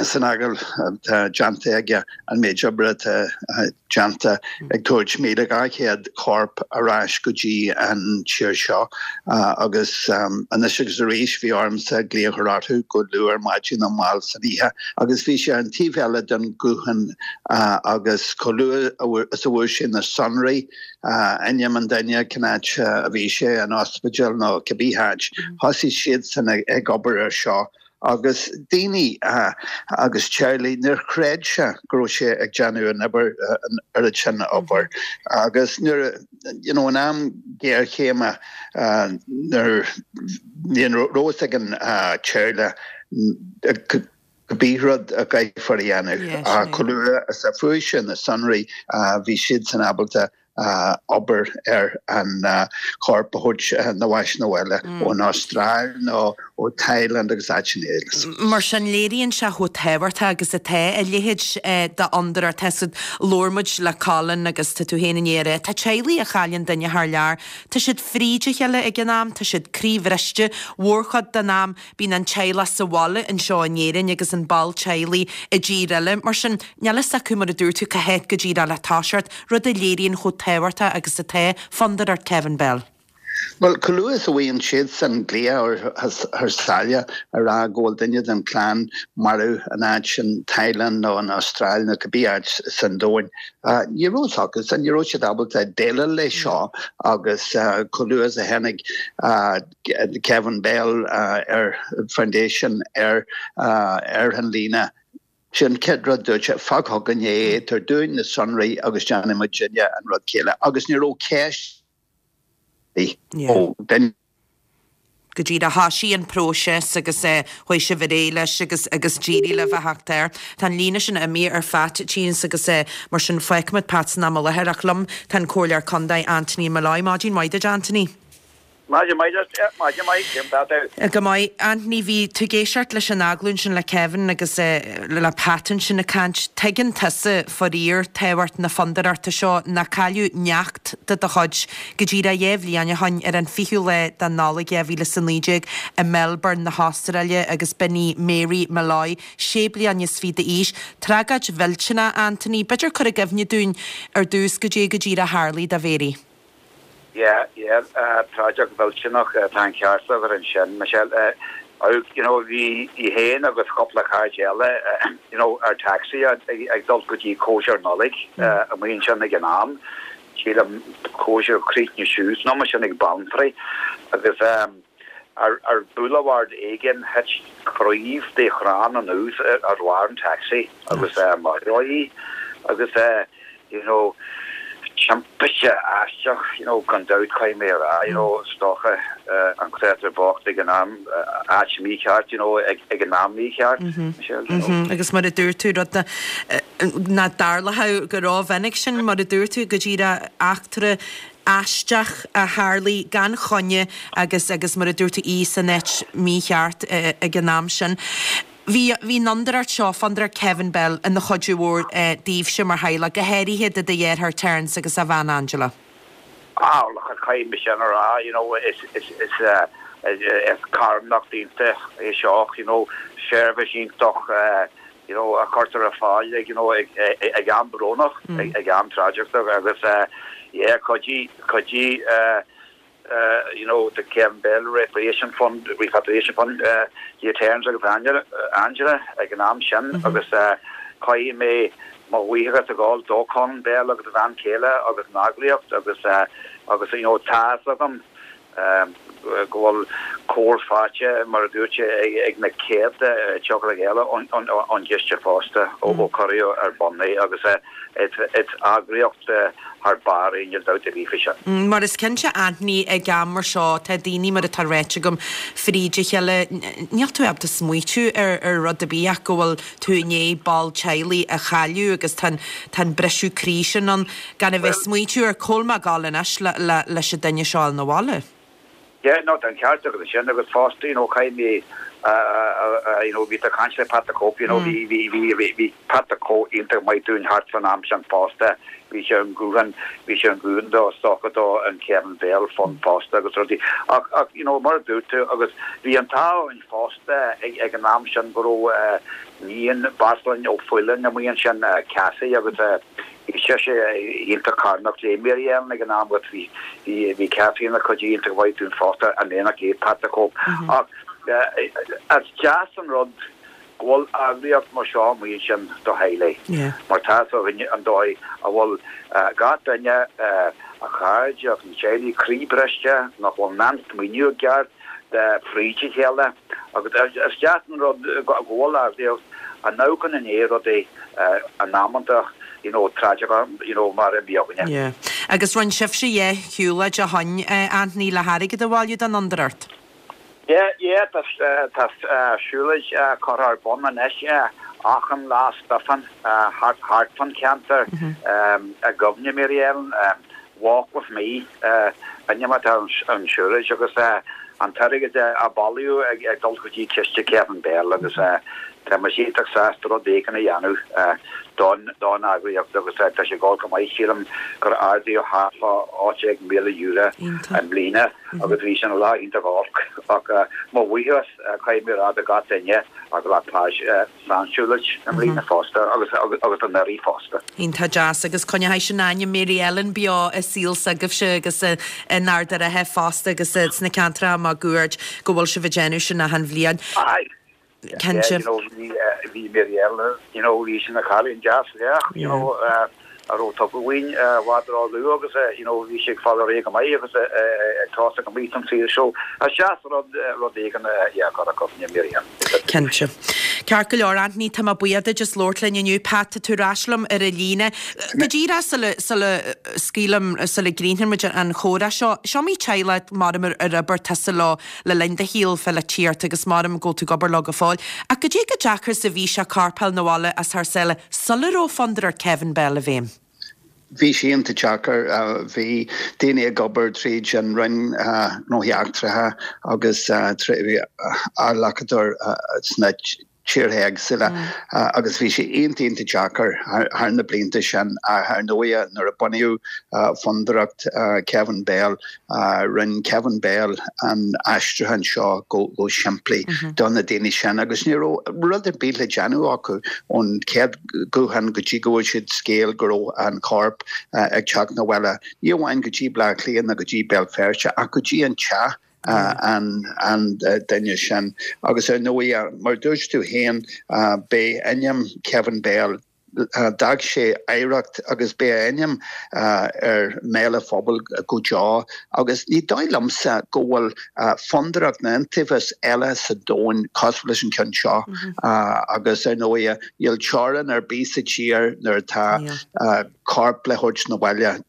san agallamh atá déanta aige an méid oibre atá déanta ag tabhairt 1,200 corp ar ais go dtí an tír seo agus anois agus arís bhí ormsa glaoch a chur orthu go luath ar maidin nó mall san oíche agus bhí sé ar an taobh eile den ghuthán agus chomh luath is a fuair sé na sonraí, ainm an duine, cén áit a bhí sé, an ospidéal nó cibé háit, thosaigh siadsan ag obair ar seo. Agus daoine agus teaghlaigh, níor chreid sé go raibh sé ag déanamh an obair, an oiread sin obair. Agus nuair, you know, in am géarchéime, nuair ní raibh fhios ag an teaghlach cibé rud a gcaithfear a dhéanamh. Ach chomh luath is a fuair sé na sonraí, bhí siadsan ábalta obair ar an chorp a thabhairt na bhais na bhaile ón Astráil nó ó Thailand agus áiteanna eile. Mar sin, léiríonn sé chomh tábhachtach agus atá a leithéid d'fhondúireacht. Tá siad, labhair muid le Colin agus tá tú féin i ndiaidh a rá, tá teaghlaigh a chailleann duine thar lear, tá siad fríd a chéile ag an am, tá siad croíbhriste mhórchuid den am. Bíonn an teaghlach sa bhaile anseo in Éirinn agus an ball teaghlaigh i dtír eile. Mar sin, níl fhios acu, mar a dúirt tú, cá háit go díreach le toiseacht, rud a léiríonn chomh tábhachtach agus atá Fondúireacht Kevin Bell. Bhuel, chomh luath is a bhfaigheann siadsan glaoch thar sáile a rá go bhfuil duine den chlann marbh in áit in Thailand nó in Astráil nó cibé áit san domhain, ní raibh fhios acusan, ní raibh siad ábalta déileáil leis seo agus chomh luath is a tháinig Kevin Bell ar Foundation ar ar an líne. Sin chéad rud dúirt sé, fág chugainn é, tabhair dúinn na sonraí agus déanfaidh muidinne an rud céanna. Agus ní raibh ceist ó duine. Go díreach thoisigh an próiseas agus chuaigh sibh ar aghaidh leis agus agus d'éirigh libh a theacht air. Tá an líne sin imithe ar Phat Tines agus mar sin fágfaimid Pat san am i láthair ach liom tá an Comhairleoir Contae Anthony Molloy. Maidin mhaith duit Anthony. Maidin mhaith duit, maidin mhaith, cén tá tú? Go maith. Anthony, bhí tú ag éisteacht leis an agallamh ansin le Kevin agus le Pat ansin ag caint. Tuigeann tusa, faraor, tábhacht na fondúireachta seo, nó cailleadh neacht de do chuid go díreach 2 bhliain ó shoin ar an 20ú lá de Nollaig 2019 i Melbourne na hAstráile agus b'in í Mary Molloy, sé bliana is fiche d'aois. Tragóid mhillteanach, Anthony. B'fhéidir cur i gcuimhne dúinn ar dtús goidé go díreach a tharlaigh do Mhary. Yeah, yeah, tragóid mhillteanach, tá an ceart agat ansin, Michelle. You know, bhí í féin agus cúpla cairde eile, you know, ar taxi ag dul go dtí cóisir Nollag amuigh ansin ag an am. Sílim cóisir chríochnaigh suas an am sin ag Beanntraí agus ar boulevard éigin thit craobh de chrann anuas ar bharr an taxi agus maraíodh í agus you know, timpiste aisteach, you know, gan dabht caithfidh mé a rá, you know, is dócha an créatúr bocht ag an am, áit mícheart, you know, ag an am mícheart, Michelle, you know. Agus mar a dúirt tú, rud nach dtarlódh go rómhinic sin, mar a dúirt tú, go díreach eachtra aisteach a tharlaigh gan choinne agus agus mar a dúirt tú í san áit mícheart ag an am sin. Bhí, bhí an fhondúireacht seo, Fondúireacht Kevin Bell, ina chuidiú mhór daoibhse mar theaghlach, go háirithe do do dheartháir Terence agus a bhean Angela. Ah, look, caithfidh mé sin a rá, you know, is, is, is, is carthanacht iontach é seo, you know, seirbhís iontach, you know, a chuirtear ar fáil ag, you know, ag, ag am brónach, ag am tragóideach agus, yeah, chuidigh, chuidigh, you know, the Kevin Bell Repatriation Fund, Repatriation Fund, le Terence agus Angela ag an am sin agus caithfidh mé mo bhuíochas a ghabháil do Colin Bell agus a bhean chéile agus an eagraíocht agus agus you know tá fhios agam go bhfuil cabhair faighte mar a dúirt sé ag na céadta teaghlaigh eile ón gciste fosta ó cuireadh ar bun é agus Is eagraíocht thar barr é, níl dabht ar bith faoi sin. Mar is cinnte Anthony, ag am mar seo, tá daoine, mar atá ráite agam, fríd a chéile, níl tú ábalta smaoitiú ar rud ar bith ach go bhfuil tú i ndiaidh ball teaghlaigh a chailleadh agus tá an briseadh croí sin ann, gan a bheith ag smaoitiú ar cá bhfuil mé ag dul anois leis an duine seo a fháil 'na bhaile. Yeah, no, tá an ceart agat ansin agus fosta, you know, caithfidh mé, you know, bhí tú ag caint le Pat the Cope, you know, bhí, bhí, bhí, bhí, bhí Pat the Cope iontach maith dúinn thart fán am sin fosta, bhí sé ar an guthán, bhí sé ar an guthán do, is dócha do an Kevin Bell Fund fosta agus rudaí. Ach, ach, you know, mar a dúirt tú, agus bhí an t-ádh orainn fosta ag, ag an am sin go raibh níon Bheartlainn Ó Faoláin amuigh ansin, Cassie agus, Bhí sise iontach carthanach le Mary Ellen ag an am agus bhí bhí Cathy ina cuidiú iontach mhaith dúinn fosta in éineacht le Pat the Cope. Ach is deas an rud go bhfuil eagraíocht mar seo amuigh ansin do theaghlaigh mar tá fhios againn an dóigh a bhfuil gach duine, a chairde agus na teaghlaigh croíbhriste, nach bhfuil in ann smaoineamh i gceart, fríd a chéile agus is deas an rud go bhfuil eagraíocht a n-amharcann i ndiaidh rudaí in amanta you know tragóideacha you know mar a bhí againne. Yeah. Agus rinne sibhse dhá shiúlóid ó shoin, Anthony, le hairgead a bhailiú don fhondúireacht? Yeah, yeah, tá tá siúlóid curtha ar bun anois achan Lá Stiofáin thart thart fán cheantar i gcuimhne Mary Ellen. Walk with Me an ainm atá ar an siúlóid agus an t-airgead a bailíodh ag dul go dtí ciste Kevin Bell agus tá muid iontach sásta rud éigin a dhéanamh don don eagraíocht agus tá sé ag dul go maith. Sílim gur ardaíodh thart fá €18,000 i mbliana agus bhí sin lá iontach olc ach mo bhuíochas caithfidh mé a rá do gach duine a ghlac páirt san siúlóid i mbliana fosta agus agus anuraidh fosta. Iontach deas agus coinneoidh sin ainm Mary Ellen beo i saol s'agaibhse agus in Ard an Rátha fosta agus sna ceantracha máguaird go bhfuil sibh ag déanamh sin achan bhliain. Aye. Cinnte. Yeah, you know, bhí bhí Mary Ellen, you know, bhí sí ina cailín deas lách, you know, a raibh tugtha uainn i bhfad ró-luath agus you know bhí sí ag fáil ar aghaidh go maith agus ag tosú go maith san saol so is deas rud rud éigin yeah a chur i gcuimhne Mary Ellen. Cinnte. Ceart go leor, Anthony, tá mé buíoch duit as labhairt linn inniu. Pat, tá tú ar ais liom ar an líne. Go díreach sula, sula scaoilim, sula gcríochnaíonn muid an chomhrá seo, is iomaí teaghlach maram ar oibir tusa leo le linn do shaoil pholaitíochta agus maram go bhfuil tú ag obair leo go fóill. Ach goidé chomh deacair is a bhí sé corp a fháil 'na bhaile as thar sáile sula raibh Fondúireacht Kevin Bell i bhfeidhm? Bhí sé iontach deacair. Bhí daoine ag obair tríd an Roinn Gnóthaí Eachtracha agus adhlacadóir sna tíortha éagsúla agus bhí sé iontach iontach deacair thar na blianta sin. Ach ar ndóighe nuair a bunaíodh Fondúireacht Kevin Bell, rinne Kevin Bell an aistriúchán seo go simplí do na daoine sin agus ní raibh rud ar bith le déanamh acu ón chéad ghuthán go dtí go bhfuair siad scéal go raibh an corp ag teacht 'na bhaile, ní amháin go dtí Bleá Cliath nó go dtí Béal Feirste ach go dtí an teach. an duine sin. Agus ar ndóigh, mar a dúirt tú féin, beidh ainm Kevin Bell, d'fhág sé oidhreacht agus beidh a ainm ar mbéal an phobail go deo. Agus ní dóigh liomsa go bhfuil fondúireacht nó iontaobhas eile sa domhan cosúil leis an ceann seo. Agus ar ndóigh, níl teorainn ar bith sa tír nuair atá. corp le thabhairt na bhaile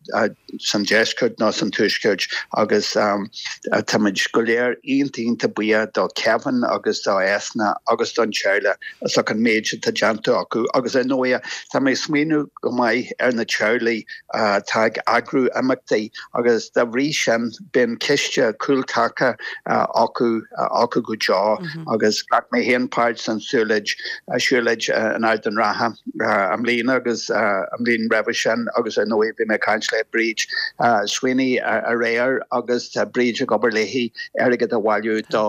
san deisceart nó san tuaisceart agus táimid go léir iontach iontach buíoch do Kevin agus do Ethna agus don teaghlach as ucht an méid atá déanta acu agus ar ndóigh tá mé ag smaoineamh go maith ar na teaghlaigh atá ag eagrú imeachtaí agus dá bhrí sin bíonn ciste cúltaca acu acu go deo agus ghlac mé féin páirt san siúlóid siúlóid in Ard an Rátha i mbliana agus an bhliain roimhe sin agus ar ndóigh bhí mé ag caint le Bríd Sweeney aréir agus tá Bríd ag obair léi airgead a bhailiú do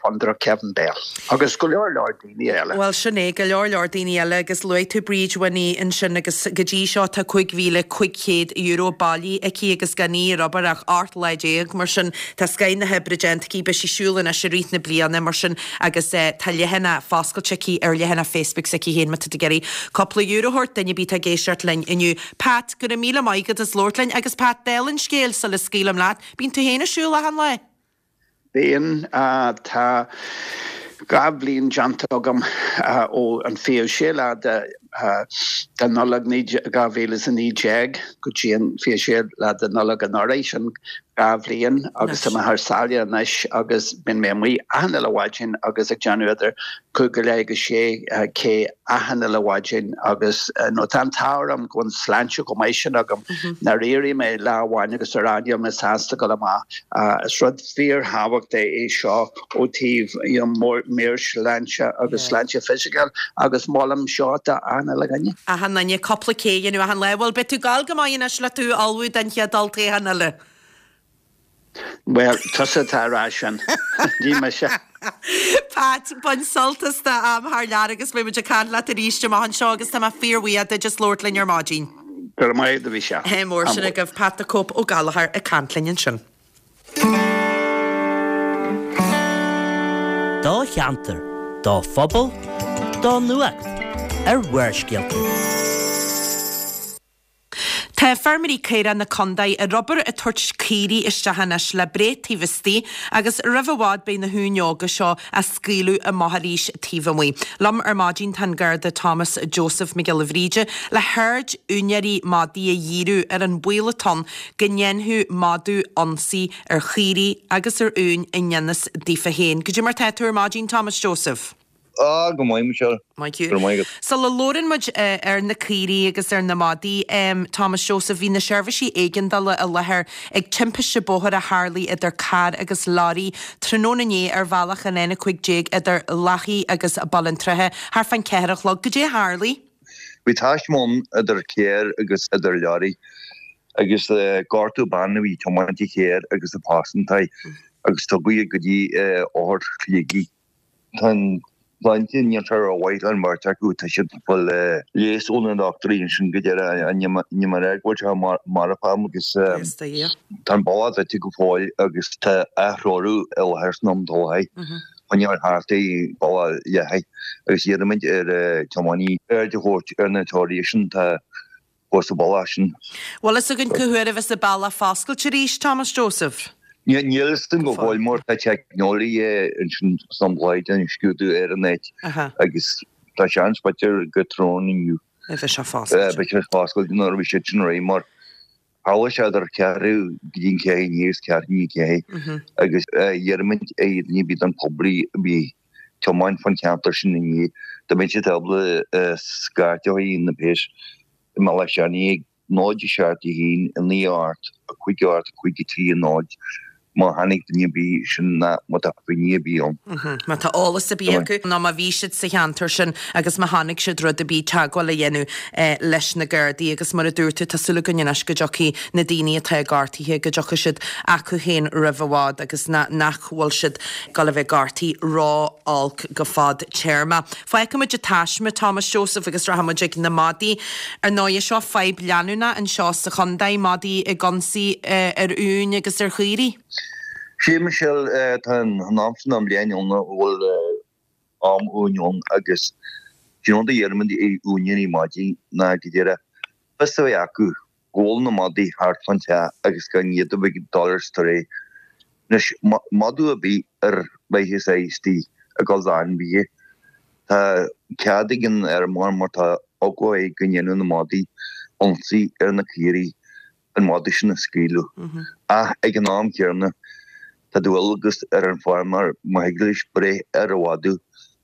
Fondúireacht Kevin Bell agus go leor leor daoine eile. Bhuel, sin é, go leor leor daoine eile agus luaigh tú Bríd Winnie ansin agus go dtí seo tá €5,500 bailithe aici agus gan í ar obair ach 18 lá, mar sin tá scoith na hoibre déanta aici, beidh sí ag siúl anois i rith na bliana mar sin agus tá leathanach foscailte aici ar leathanach Facebook s'aici féin má tá tú ag iarraidh cúpla euro a thabhairt duine ar bith atá ag éisteacht linn inniu. Pat, go raibh míle maith agat as labhairt linn agus Pat, dála an scéil sula scaoilim leat, bíonn tú féin ag siúl achan lá? Bíonn. Tá 2 bhliain déanta agam ó an 26 lá de Nollaig 2019 go dtí an 26 lá de Nollaig anuraidh, sin 2 bhliain agus tá mé thar sáile anois agus bíonn mé amuigh achan uile mhaidin agus ag déanamh idir 5 go leith agus 6 K achan uile mhaidin agus nó tá an t-ádh orm go bhfuil an sláinte chomh maith sin agam nár éirigh mé lá amháin agus a rá níl mé sásta dul amach. Is rud fíorthábhachtach é seo ó taobh you know meabhairshláinte agus sláinte fisiciúil agus molaim seo do achan uile dhuine. Achan duine cúpla K a dhéanamh achan lá. Bhuel beidh tú ag gabháil go maith anois le tú a ullmhú don chéad olltoghchán eile. Bhuel, tusa atá a rá sin, ní mise. Pat, bain sult as do am thar lear agus beidh muid ag caint leat arís amach anseo agus tá mé fíorbhuíoch duit as labhairt linn ar maidin. Go raibh maith agat, a Mhichelle. Ádh mór sin agaibh. Pat the Cope Ó Gallchóir ag caint linn ansin. Do cheantar, do phobal, do nuacht ar Bharrscéalta. Tá feirmeoirí caorach na condae ar obair ag tabhairt caoirigh isteach anois le breith taobh istigh agus roimh i bhfad beidh na huain óga seo á scaoileadh amach arís taobh amuigh. Liom ar maidin tá an Garda Thomas Joseph Mac Giolla Bhríde le haird úinéirí madaí a dhíriú ar an baol atá ann go ndéanfadh madadh ionsaí ar chaoirigh agus ar uain i ngan fhios daofa féin. Goidé mar tá tú ar maidin Thomas Joseph? Á, go maith, Michelle. Maith thú. Go raibh maith agat. Sula labhrann muid ar na caoirigh agus ar na madaí, Thomas Joseph, bhí na seirbhísí éigeandála i láthair ag timpiste bóthair a tharlaigh idir carr agus leoraí tráthnóna inné ar bhealach an N15 idir Loughea agus Baile an tSratha, thart fán cheathair a chlog. Goidé a tharlaigh? Bhí taisme ann idir carr agus idir leoraí agus gortaíodh bean a bhí ag tiomáint an chairr agus a pearsantaí agus tugadh í go dtí othar Shligigh. Tá an tsláinte, níl sé rómhaith leis an mbeirt acu, tá siad ag fáil leigheas ó na dochtúirí ansin go deireadh, níl mé ag rá go bhfuil sé marfach agus tá an bealach druidte go fóill agus tá athreorú i láthair san am atá choinneáil thart ar bhealach Loughea agus iarraimid ar tiománaí aird a thabhairt ar na treoraithe sin tá fós sa bhealach sin. Bhfuil fhios againn cá huair a bheas an bealach foscailte arís, Thomas Joseph? Níl fhios againn go fóill mar tá teicneolaithe ansin san Bhláid ag scrúdú ar an áit agus tá seans b'fhéidir go tráthnóna inniu a bheidh sé foscailte. Beidh sé foscailte nuair a bheidh siad sin réidh mar tharla sé idir ceathrú go dtí an ceathair i ndiaidh is ceathrú i ndiaidh ceathair agus iarraimid ar dhuine ar bith den poblí a bhí ag tiomáint fán cheantar sin inné dá mbeadh siad ábalta scairt a chur na péas i mBealach Seanaidh ag 0 7 1 9 8 5 8 5 3 0 má chonaic duine ar bith sin ná má tá finné ar bith ann. Má tá eolas ar bith acu nó má bhí siad sa cheantar sin agus má chonaic siad rud ar bith, teagmháil a dhéanamh leis na Gardaí agus mar a dúirt tú, tá súil againn anois go dtiocfaidh na daoine atá gortaithe, go dtiocfaidh siad acu féin roimh i bhfad agus nach bhfuil siad ag dul a bheith gortaithe ró-olc go fadtéarmach. Fágfaimid an taisme, Thomas Joseph, agus rachaimid ag na madaí. Ar ndóighe, seo fadhb leanúnach anseo sa chontae, madaí ag ionsaí ar uain agus ar chaoirigh. Sea, Michelle, tá an am sin den bhliain ann a bhfuil am uain ann agus an rud a iarraimid ar úinéirí madaí ná go díreach fios a bheith acu go bhfuil na madaí thart fán teach agus gan iad a bheith ag dul ar strae. Anois, madadh ar bith ar mhaitheas é istigh ag dul d'ainmhithe, tá cead ag an fheirmeoir má tá eagla air go ndéanfadh na madaí. ionsaí ar na caoirigh an madadh sin a scaoileadh. Ach ag an am céanna, tá dualgas ar an feirmeoir má thig leis breith ar an mhadadh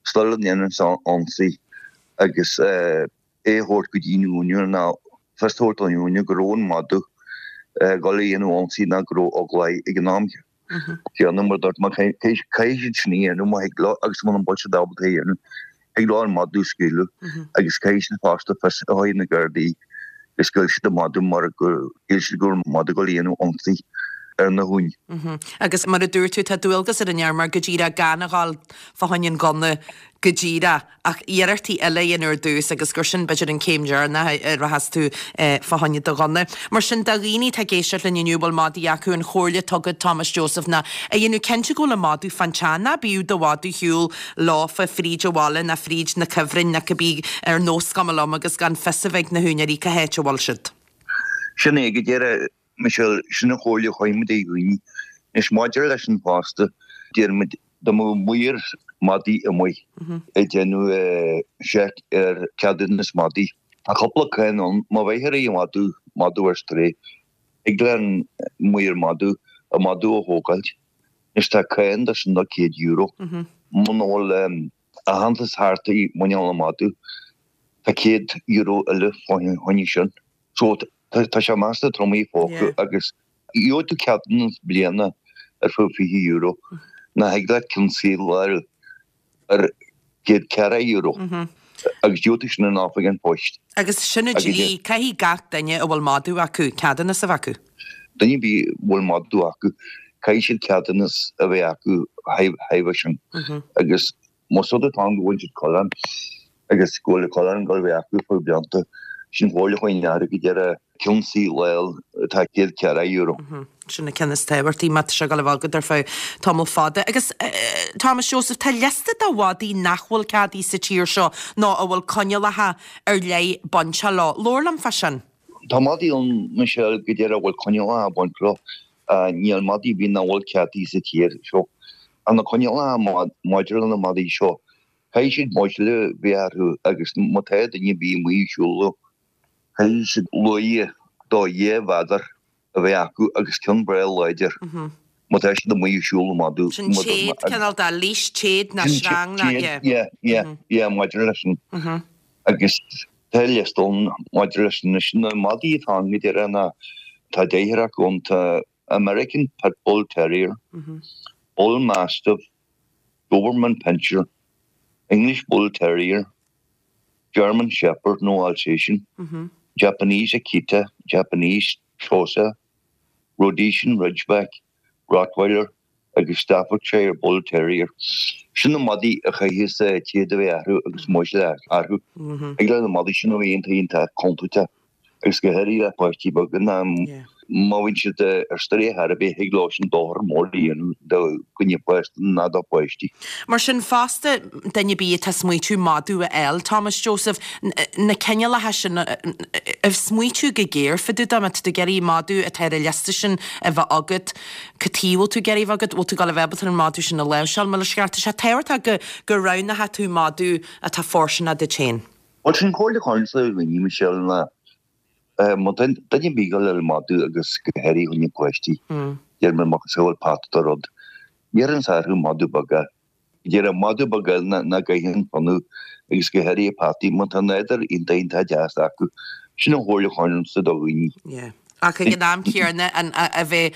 sula ndéanann sé ionsaí agus é a thabhairt go dtí an úinéir nó fios a thabhairt don úinéir go raibh an madadh ag dul a dhéanamh ionsaí nó go raibh eagla air ag an am céanna mar dúirt mé caithfidh siad sin a dhéanamh má thig leo agus muna bhfuil siad ábalta é a dhéanamh thig leo an madadh a scaoileadh agus caithfidh siad fosta fios a thabhairt na Gardaí go scaoil siad an madadh mar go shíl siad go raibh an madadh ag dul a dhéanamh ionsaí ar na huain. Agus mar a dúirt tú tá dualgas ar an fheirmeoir go díreach gan a dhul fá choinne an gunna go díreach ach iarrachtaí eile a dhéanamh ar dtús agus gur sin b'fhéidir an céim deireanach a rachas tú fá choinne do ghunna. Mar sin do dhaoine atá ag éisteacht linn inniu a bhfuil madaí acu, an chomhairle atá agat Thomas Joseph ná a dhéanamh cinnte go bhfuil an madadh fán teach, ná bíodh do mhadadh ar shiúl leofa fríd an bhaile ná fríd na cuibhrinn ná cibé ar nós cuma liom agus gan fios a bheith ag na húinéirí cá háit a bhfuil siad. Sin é go díreach. Michelle, Sin an chomhairle a chuirimid ar dhaoine. Anois maidir leis sin fosta, deirimid dá mbeadh maor madaí amuigh ag déanamh seic ar ceadúnas madaí, tá cúpla cáin ann, má bheifear ag madadh, madadh ar strae, thig le an maor madadh an madadh a thógáilt. Anois tá cáin de sin de €100. Muna bhfuil aitheantas thart i muineál an mhadaidh, tá €100 eile fá choinne sin. So tá sé measta trom i bpóca agus gheobhaidh tú ceadúnas bliana ar feadh €20 ná thig leat ceann saoil a fháil ar €104 agus gheobhaidh tú sin in oifig an phoist. Agus sin an dlí, caithfidh gach duine a bhfuil madadh acu ceadúnas a bheith acu. Duine ar bith a bhfuil madadh acu, caithfidh siad ceadúnas a bheith acu chuige sin agus Más rud atá ann go bhfuil siad coileán agus go bhfuil an coileán ag dul a bheith acu fá blianta, sin chomhairle a chuirfinn orthu go díreach ceann saoil a fháil atá €104. Sin an ceann is tábhachtaí má tá sé ag dul a bheith agat ar feadh tamall fada. Agus Thomas Joseph, tá liosta de mhadaí nach bhfuil ceadaithe sa tír seo nó a bhfuil coinníollacha ar leith bainteach leo. Labhair liom fá sin. Tá madaí ann, Michelle, go díreach a bhfuil coinníollacha ag baint leo. Níl madaí ar bith nach bhfuil ceadaithe sa tír seo. Ach na coinníollacha maidir le na madaí seo, caithfidh siad muiceall a bheith orthu agus má tá duine ar bith amuigh ag siúl leo, caithfidh siad luaidhe do 2 mhéadar a bheith acu agus ceann breá láidir má tá siad amuigh ag siúl le madadh. Sin téad, cineál de leash, téad ná sreang ná, yeah. Yeah, yeah, yeah, maidir leis sin. Agus tá liosta ann maidir leis sin. Anois na madaí atá ann go díreach ná tá deichniúr acu ann, tá American Pit Bull Terrier, Bull Mastiff, Doberman Pinscher, English Bull Terrier, German Shepherd nó Alsatian, Japanese Akita, Japanese Tosa, Rhodesian Ridgeback, Rottweiler agus Staffordshire Bull Terrier. Sin na madaí a chaithfeas téad a bheith orthu agus muiceall orthu. Thig le na madaí sin a bheith iontach iontach contúirteach agus go háirithe le páistí beaga ná má bhíonn siad ar strae ar chor ar bith thig leo sin dochar mór a dhéanamh do dhuine fásta ná do pháistí. Mar sin fosta, duine ar bith atá ag smaoitiú madadh a fháil, Thomas Joseph, na cineálacha sin, ag smaoitiú go géar fá dtaobh de, má tá tú ag iarraidh madadh atá ar an liosta sin a bheith agat, cad chuige a bhfuil tú ag iarraidh a bheith agat, bhfuil tú ag dul a bheith ábalta an madadh sin a láimhseáil, mar is ceart. Tá sé tábhachtach go, go roghnódh tú madadh atá fóirsteanach duit féin. Bhuel, sin comhairle a chuirfinnse ar dhaoine, Michelle, ná má tá duine ar bith ag dul a fháil madadh agus go háirithe fá choinne páistí, deir mé macasamhail peata de rud, iarrainnse orthu madadh beag a Deir an madadh beag eile nach gcaitheann fionnadh agus go háirithe peataí má tá nádúr iontach iontach deas acu. Sin an chomhairle a chuirfinnse do dhaoine. Yeah. Ach ag an am céanna an a bheith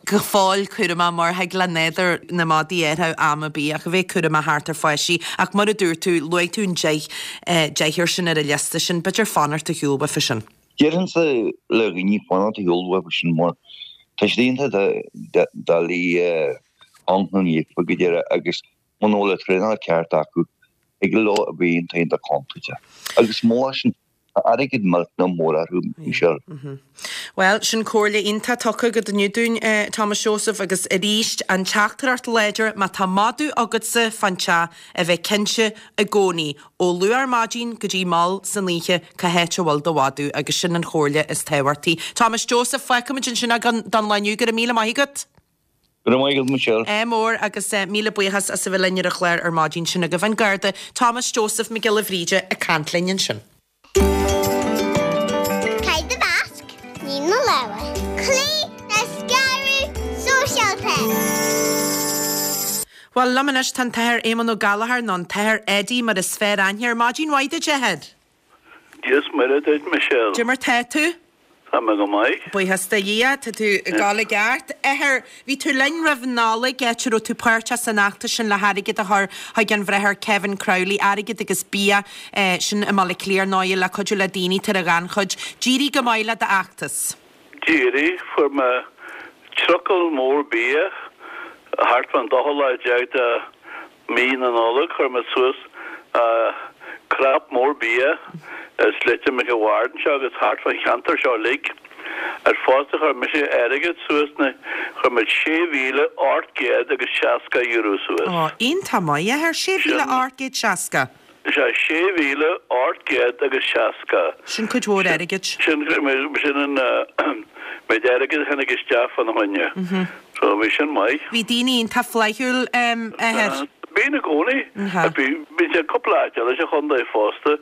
go fóill cúramach mar thig le nádúr na madaí athrú am ar bith ach a bheith cúramach thart ar pháistí. Ach mar a dúirt tú, luaigh tú an deich deichniúr sin ar an liosta sin, b'fhéidir fanacht ar shiúl uafa sin. Déarfainnse le dhaoine fanacht ar shiúl uafa sin mar tá siad iontach doiligh ionchnaíofa go díreach agus muna bhfuil an traenáil ceart acu thig leo a bheith iontach iontach contúirteach. Agus mó sin, tá airgead millteanach mór orthu, Michelle. Bhuel, sin comhairle iontach tugtha agat inniu dúinn, Thomas Joseph, agus arís, an teachtaireacht láidir, má tá madadh agatsa fán teach, a bheith cinnte i gcónaí, ó luath ar maidin go dtí mall san oíche, cá háit a bhfuil do mhadadh, agus sin an chomhairle is tábhachtaí. Thomas Joseph, fágfaimid ansin é don lá inniu, go raibh míle maith agat. Go raibh maith agat Michelle. Ádh mór agus míle buíochas as a bheith linn ar an chlár ar maidin. Sin agaibh an Garda Thomas Joseph Mac Giolla Bhríde ag caint linn ansin. na lámha. Cloí le scaradh sóisialta. Bhuel, liom anois tá an tAthair Éamonn Ó Gallchóir, nó an tAthair Eddie mar is fearr aithne air. Maidin mhaith duit, a Athair. Dia is Muire duit, Michelle. Cad é mar tá tú? Tá mé go maith. Buíochas do Dhia, tá tú ag dul i gceart. Athair, bhí tú linn roimh Nollaig, áit a raibh tú páirteach san fheachtas sin le hairgead a chur chuig an Bhráthair Kevin Crowley, airgead agus bia, sin i mBaile Átha Cliath ar ndóighe, le cuidiú le daoine atá ar an ghannchuid. D'éirigh go maith le d'fheachtas. D'éirigh, fuair mé trucail mór bia thart fán dóú lá déag de Mí na Nollag chuir mé suas crap mór bia i Sléibhte Mhic an Bhaird anseo agus thart fán cheantar seo uilig. Ar fosta chuir mise airgead suas na chuir muid €6,800 agus 60 euro suas. Ó, iontach maith, a Athair, 6,860. Sea, 6,800 agus 60. Sin cuid mhór airgid. Sin, sin an méid airgid a tháinig isteach fána choinne. So, bhí sin maith. Bhí daoine iontach flaithiúil, a Athair. Bíonn i gcónaí. Bhí, bhí sé cúpla áit eile sa chontae fosta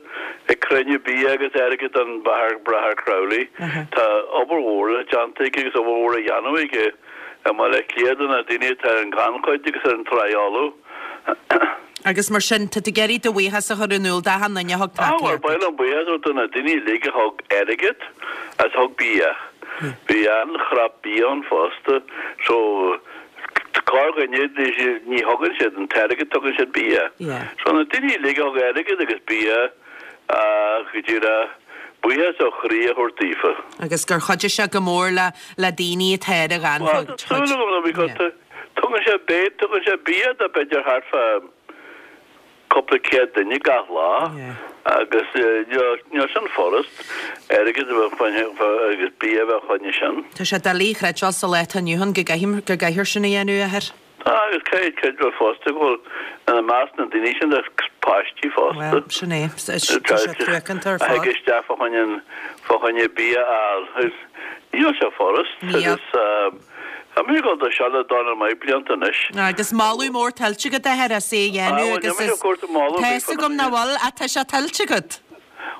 ag cruinniú bia agus airgead don Bhráthair Crowley. Tá obair mhór déanta aige agus obair mhór á dhéanamh aige i mBaile Átha Cliath do na daoine atá ar an ghannchuid agus ar an tsraith fholamh. Agus mar sin, tá tú ag iarraidh do bhuíochas a chur in iúl d'achan duine a thug tacaíocht duit. Ba mhaith liom buíochas a thabhairt do na daoine uilig a thug airgead agus a thug bia. Bhí an-chrap bia ann fosta. So, corrdhuine, ní thugann siad an t-airgead, tugann siad bia. So, na daoine uilig a thug airgead agus bia, go díreach, buíochas ó chroí a thabhairt daofa. Agus gur chuidigh sé go mór le daoine atá ar an ghannchuid. Tá súil agam, because Tugann sé bia, tugann sé bia do b'fhéidir thart fá cúpla céad duine gach lá agus níl sin furast, airgead a bheith agus bia a bheith fá choinne sin. Tá sé doiligh a chreidbheáil sa lá atá inniu ann go gcaithfear sin a dhéanamh, a Athair. Tá, agus caithfidh creidbheáil fosta go bhfuil ina measc na ndaoine sin tá páistí fosta. Bhuel, sin é. Tá sé truacánta ar A fad. thig isteach fá choinne, fá choinne bia a fháil. Níl sé furast Níl. agus. Tá mé ag dul do seo le dornán maith blianta anois. Agus moladh mór tuillte agat, a Athair, as é a dhéanamh agus is, tá fhios agam nach bhfuil, ach tá sé tuillte agat.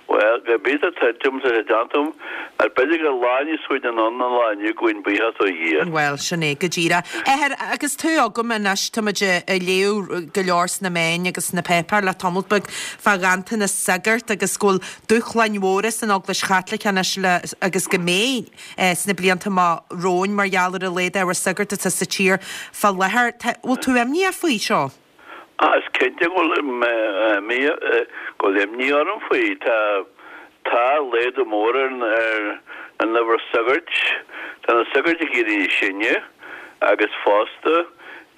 Bhuel, go bith tá tuillte agam, tá sé déanta agam, ach b'fhéidir gur lá níos faide anonn ná an lá inniu, gabhaim buíochas ó Dhia. Bhuel, sin é go díreach. A Athair, agus tú agam anois, tá muid ag léamh go leor sna meáin agus sna páipéir le tamall beag fá ghanntanas sagart agus go bhfuil dúshláin mhóra san Eaglais Chaitliceach anois le, agus go mbeidh, sna blianta amach romhainn mar gheall ar a laghad ábhar sagart atá sa tír fá láthair. Tá, bhfuil tú imníoch faoi seo? Ah, is cinnte go bhfuil go bhfuil imní orm faoi. Tá, tá laghdú mór ar an, ar an uimhir sagairt. Tá na sagairt ag éirí níos sine agus fosta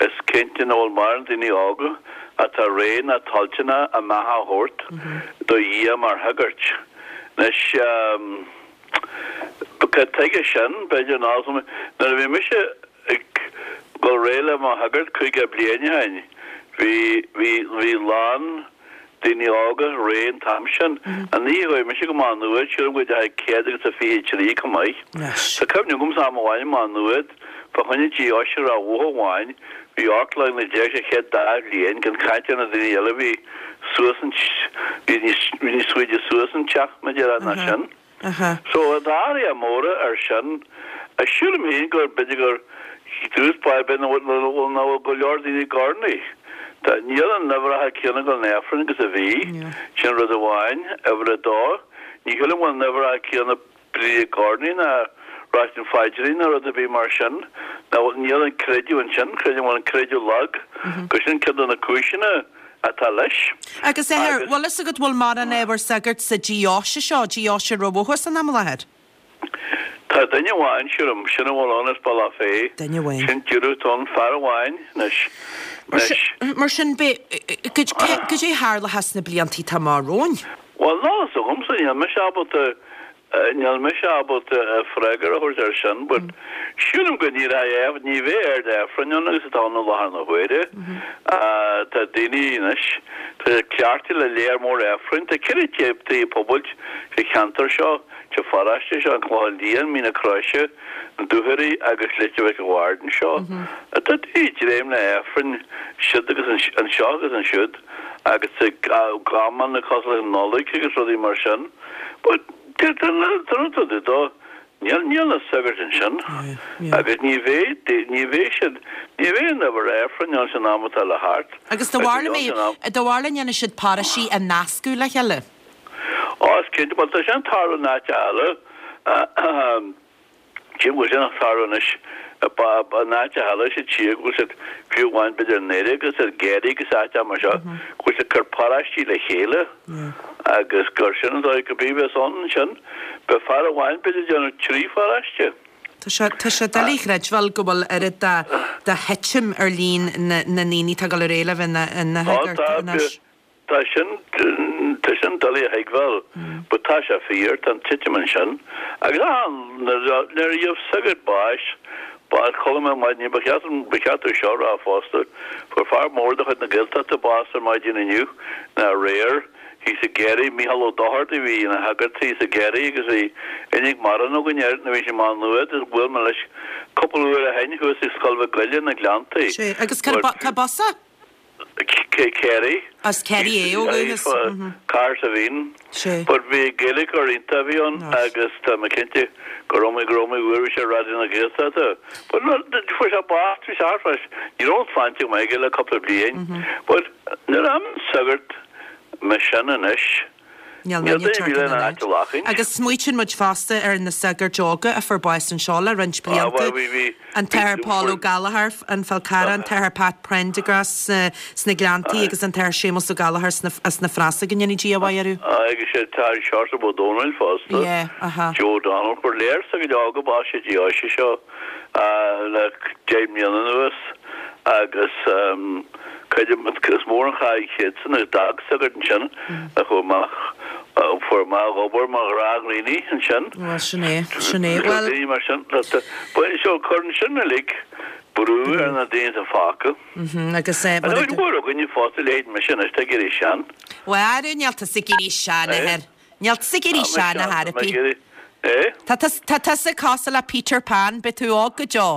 is cinnte nach bhfuil mórán daoine óga atá réidh ná toilteanach a mbeatha a thabhairt do Dhia mar shagairt. Anois, Cad tuige sin? B'fhéidir nach. Nuair a bhí mise ag dul réidh le mo shagart 50 bliain ó shin, bhí, bhí, bhí lán daoine óga réidh an t-am sin. An oíche a chuaigh mise go Má Nuad, sílim go dteachaigh 123 chomh maith. Tá cuimhne agamsa am amháin i Má Nuad, fá choinne deoise Ráth Bhoth amháin, bhí 18 line sa chéad dá bhliain, gan caint ar na daoine eile a bhí suas an, bhí níos, bhí níos faide suas an teach, mar a déarfá, ná sin. So, tá athruithe móra ar sin. Sílim féin gur, b'fhéidir gur dtús báire b'fhéidir nach bhfuil, nach bhfuil go leor daoine ag urnaí. Tá, níl an uimhreacha céanna ag dul 'na Aifrinn agus a bhí, sin rud amháin. Uimhir a dó, ní shílim go bhfuil an uimhreacha céanna daoine ag urnaí ná ráit an phaidrín ná rud ar bith mar sin. Ná níl an creideamh ansin, creidim go bhfuil an creideamh lag, gur sin ceann de na cúiseanna atá leis. Agus a Athair, bhfuil fhios agat bhfuil mórán ábhar sagairt sa deoise seo, deoise Ráth Bhoth san am i láthair? Tá duine amháin, sílim, sin a bhfuil ann as Bealach Féich. Duine amháin. Sin díreach atá ann, fear amháin anois. Anois. Mar sin, beidh, goidé a tharlóchas sna blianta atá amach romhainn? Bhuel, níl fhios agamsa, níl mise ábalta, níl mise ábalta freagra a thabhairt air sin, but sílim go n-éireoidh, ní bheidh oiread Aifrinn ann agus atá ann i láthair na huaire. Tá daoine anois, tá siad cleachtaithe le léar mór Aifrinn, tá ceithre tigh pobail sa cheantar seo, sa pharóiste seo, An Clochán Liath, Mín na Croise, Na Dúchoraidh agus Leitir Mhic an Bhaird anseo. Tá daoine ag dréim le hAifrinn siud agus anseo agus ansiúd. agus ag amanna cosúil leis an Nollaig agus rudaí mar sin. But tá rud dó. Níl, níl na sagairt ansin agus ní bheidh, ní bheidh siad, ní bheidh an uimhir Aifrinn ann san am atá le theacht. Agus do bharr mé, do bharr le ndéanfaidh siad paróistí a nascadh le chéile? Ó, is cinnte, bhuel tá sin ag tarlú in áit eile. Cé go bhfuil sin ag tarlú anois in áit eile sa tír, go bhfuil siad, fiú amháin b'fhéidir i nDoire agus i gCiarraí agus áiteacha mar seo, go bhfuil siad ag cur paróistí le chéile agus gur sin an dóigh go bith bheas ann ansin. Beidh fear amháin b'fhéidir ag déanamh trí pharóiste. Tá sé, tá sé doiligh a chreidbheáil go bhfuil oiread de, de thitim ar líon na, na ndaoine atá ag dul ar aghaidh le bheith ina, ina shagart anois. Tá sin, tá sin doiligh a thuigbheáil, but tá sé fíor, tá an titim ansin. Agus ah, nuair a gheobh sagart báis, bás, chuala mé ar maidin, ba cheart, ba cheart domh seo a rá fosta, fuair fear mór de chuid na Gaeltachta bás ar maidin inniu, nó aréir, thíos i gCiarraí, Mícheál Ó Dochartaigh, bhí ina shagart thíos i gCiarraí agus bhí aithne mhaith againn air nuair a bhí sé i Má Nuad, agus bhuail mé leis cúpla uair ó shin thuas ag Scoil Mhic Goille na Gleanntaí. Sea, agus cárb as é? Ciarraí. As Ciarraí é ó dhúchas. Cahersiveen. Sea. But bhí Gaeilgeoir iontach a bhí ann agus tá mé cinnte gur iomaí gur iomaí uair bhí sé ar Raidió na Gaeltachta. But no, fuair sé bás, bhí sé thart fá, ní raibh an tsláinte go maith aige le cúpla bliain. But nuair a imíonn sagart mar sin anois, Níl duine ar bith lena áit a ghlacadh. Agus smaoitíonn muid fosta ar na sagairt óga a fuair bás anseo le roinnt blianta, an tAthair Paul Ó Gallchóir, an Fál Carrach, an tAthair Pat Prendergast sna Gleanntaí agus an tAthair Séamus Ó Gallchóir as na Frásaigh, go ndéana Dia a mhaith orthu. Agus an tAthair Seosamh Ó Domhnaill fosta, Joe O'Donnell. Fuair léar sagairt óga bás sa deoise seo le 10 mbliana anuas agus. Creidim, is mór an chaill siadsan agus d'fhág sagart ansin a chuaigh amach, a fuair amach ag obair mar ghnáthdhaoine ansin. Bhuel, sin é, sin é. Bhuel. Daoine mar sin, so cuireann sin uilig brú ar na daoine atá fágtha. Agus eh, mar a. Agus mór againne fosta, leithéid mise anois, tá ag éirí sean. Bhuel, ara, níl tusa ag éirí sean, a athair. Níl tusa ag éirí sean, a Thairpí. Eh? Tá tusa cosúil le Peter Pan, beidh tú óg go deo.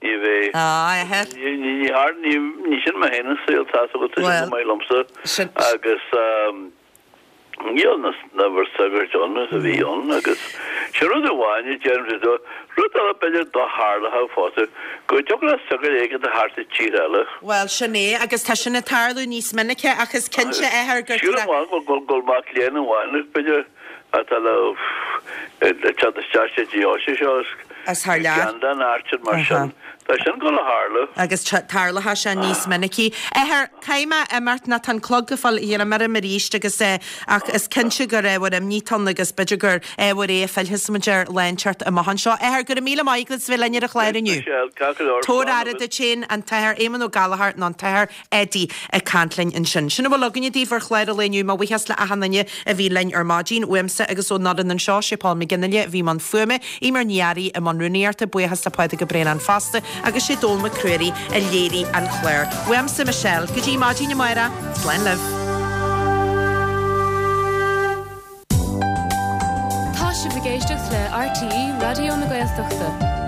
Ní bheidh. Á, a athair. Ní har, ní, ní sin mé féin an saol, tá's agat, tá sin go maith liomsa. Sin. Agus níl na, na bhur sagairt ann is a bhí ann agus sin rud amháin a deirim do, rud eile b'fhéidir do tharlódh fosta, go dtiocfadh le sagart éigin a theacht as tír eile. Bhuel, sin é, agus tá sin ag tarlú níos minice ach is cinnte, a athair, gur. Sílim go bhfuil, go bhfuil mac léinn amháin, b'fhéidir, atá le teacht isteach sa deoise seo As thar lear. Ceann den áit mar sin. Tá sin ag dul a tharlú. Agus tarlóidh sé níos minicí. Athair, caithfidh mé imeacht nó tá an clog ag fáil greim orm arís agus ach is cinnte gur ábhar imní atá ann agus b'fhéidir gur ábhar é a phillfeas muid air lá inteacht amach anseo. Athair, go raibh míle maith agat as bheith linn ar an chlár inniu. Tabhair aire duit féin, an tAthair Éamonn Ó Gallchóir nó an tAthair Eddie ag caint linn ansin. Sin a bhfuil againne daoibh ar chlár an lae inniu. Mo bhuíochas le achan duine a bhí linn ar maidin. Uaimse agus ón fhoireann anseo, sé Paul McGinley a bhí i mbun fuaime, Eimear Ní Fhearraigh i mbun rúnaíochta, buíochas le Pádraig Ó Braonáin fosta agus sé Dónall Mac Ruairí a léirigh an clár. Uaimse, Michelle, go dtí maidin amárach, slán libh. Tá sibh ag éisteacht le RTÉ Raidió na Gaeltachta.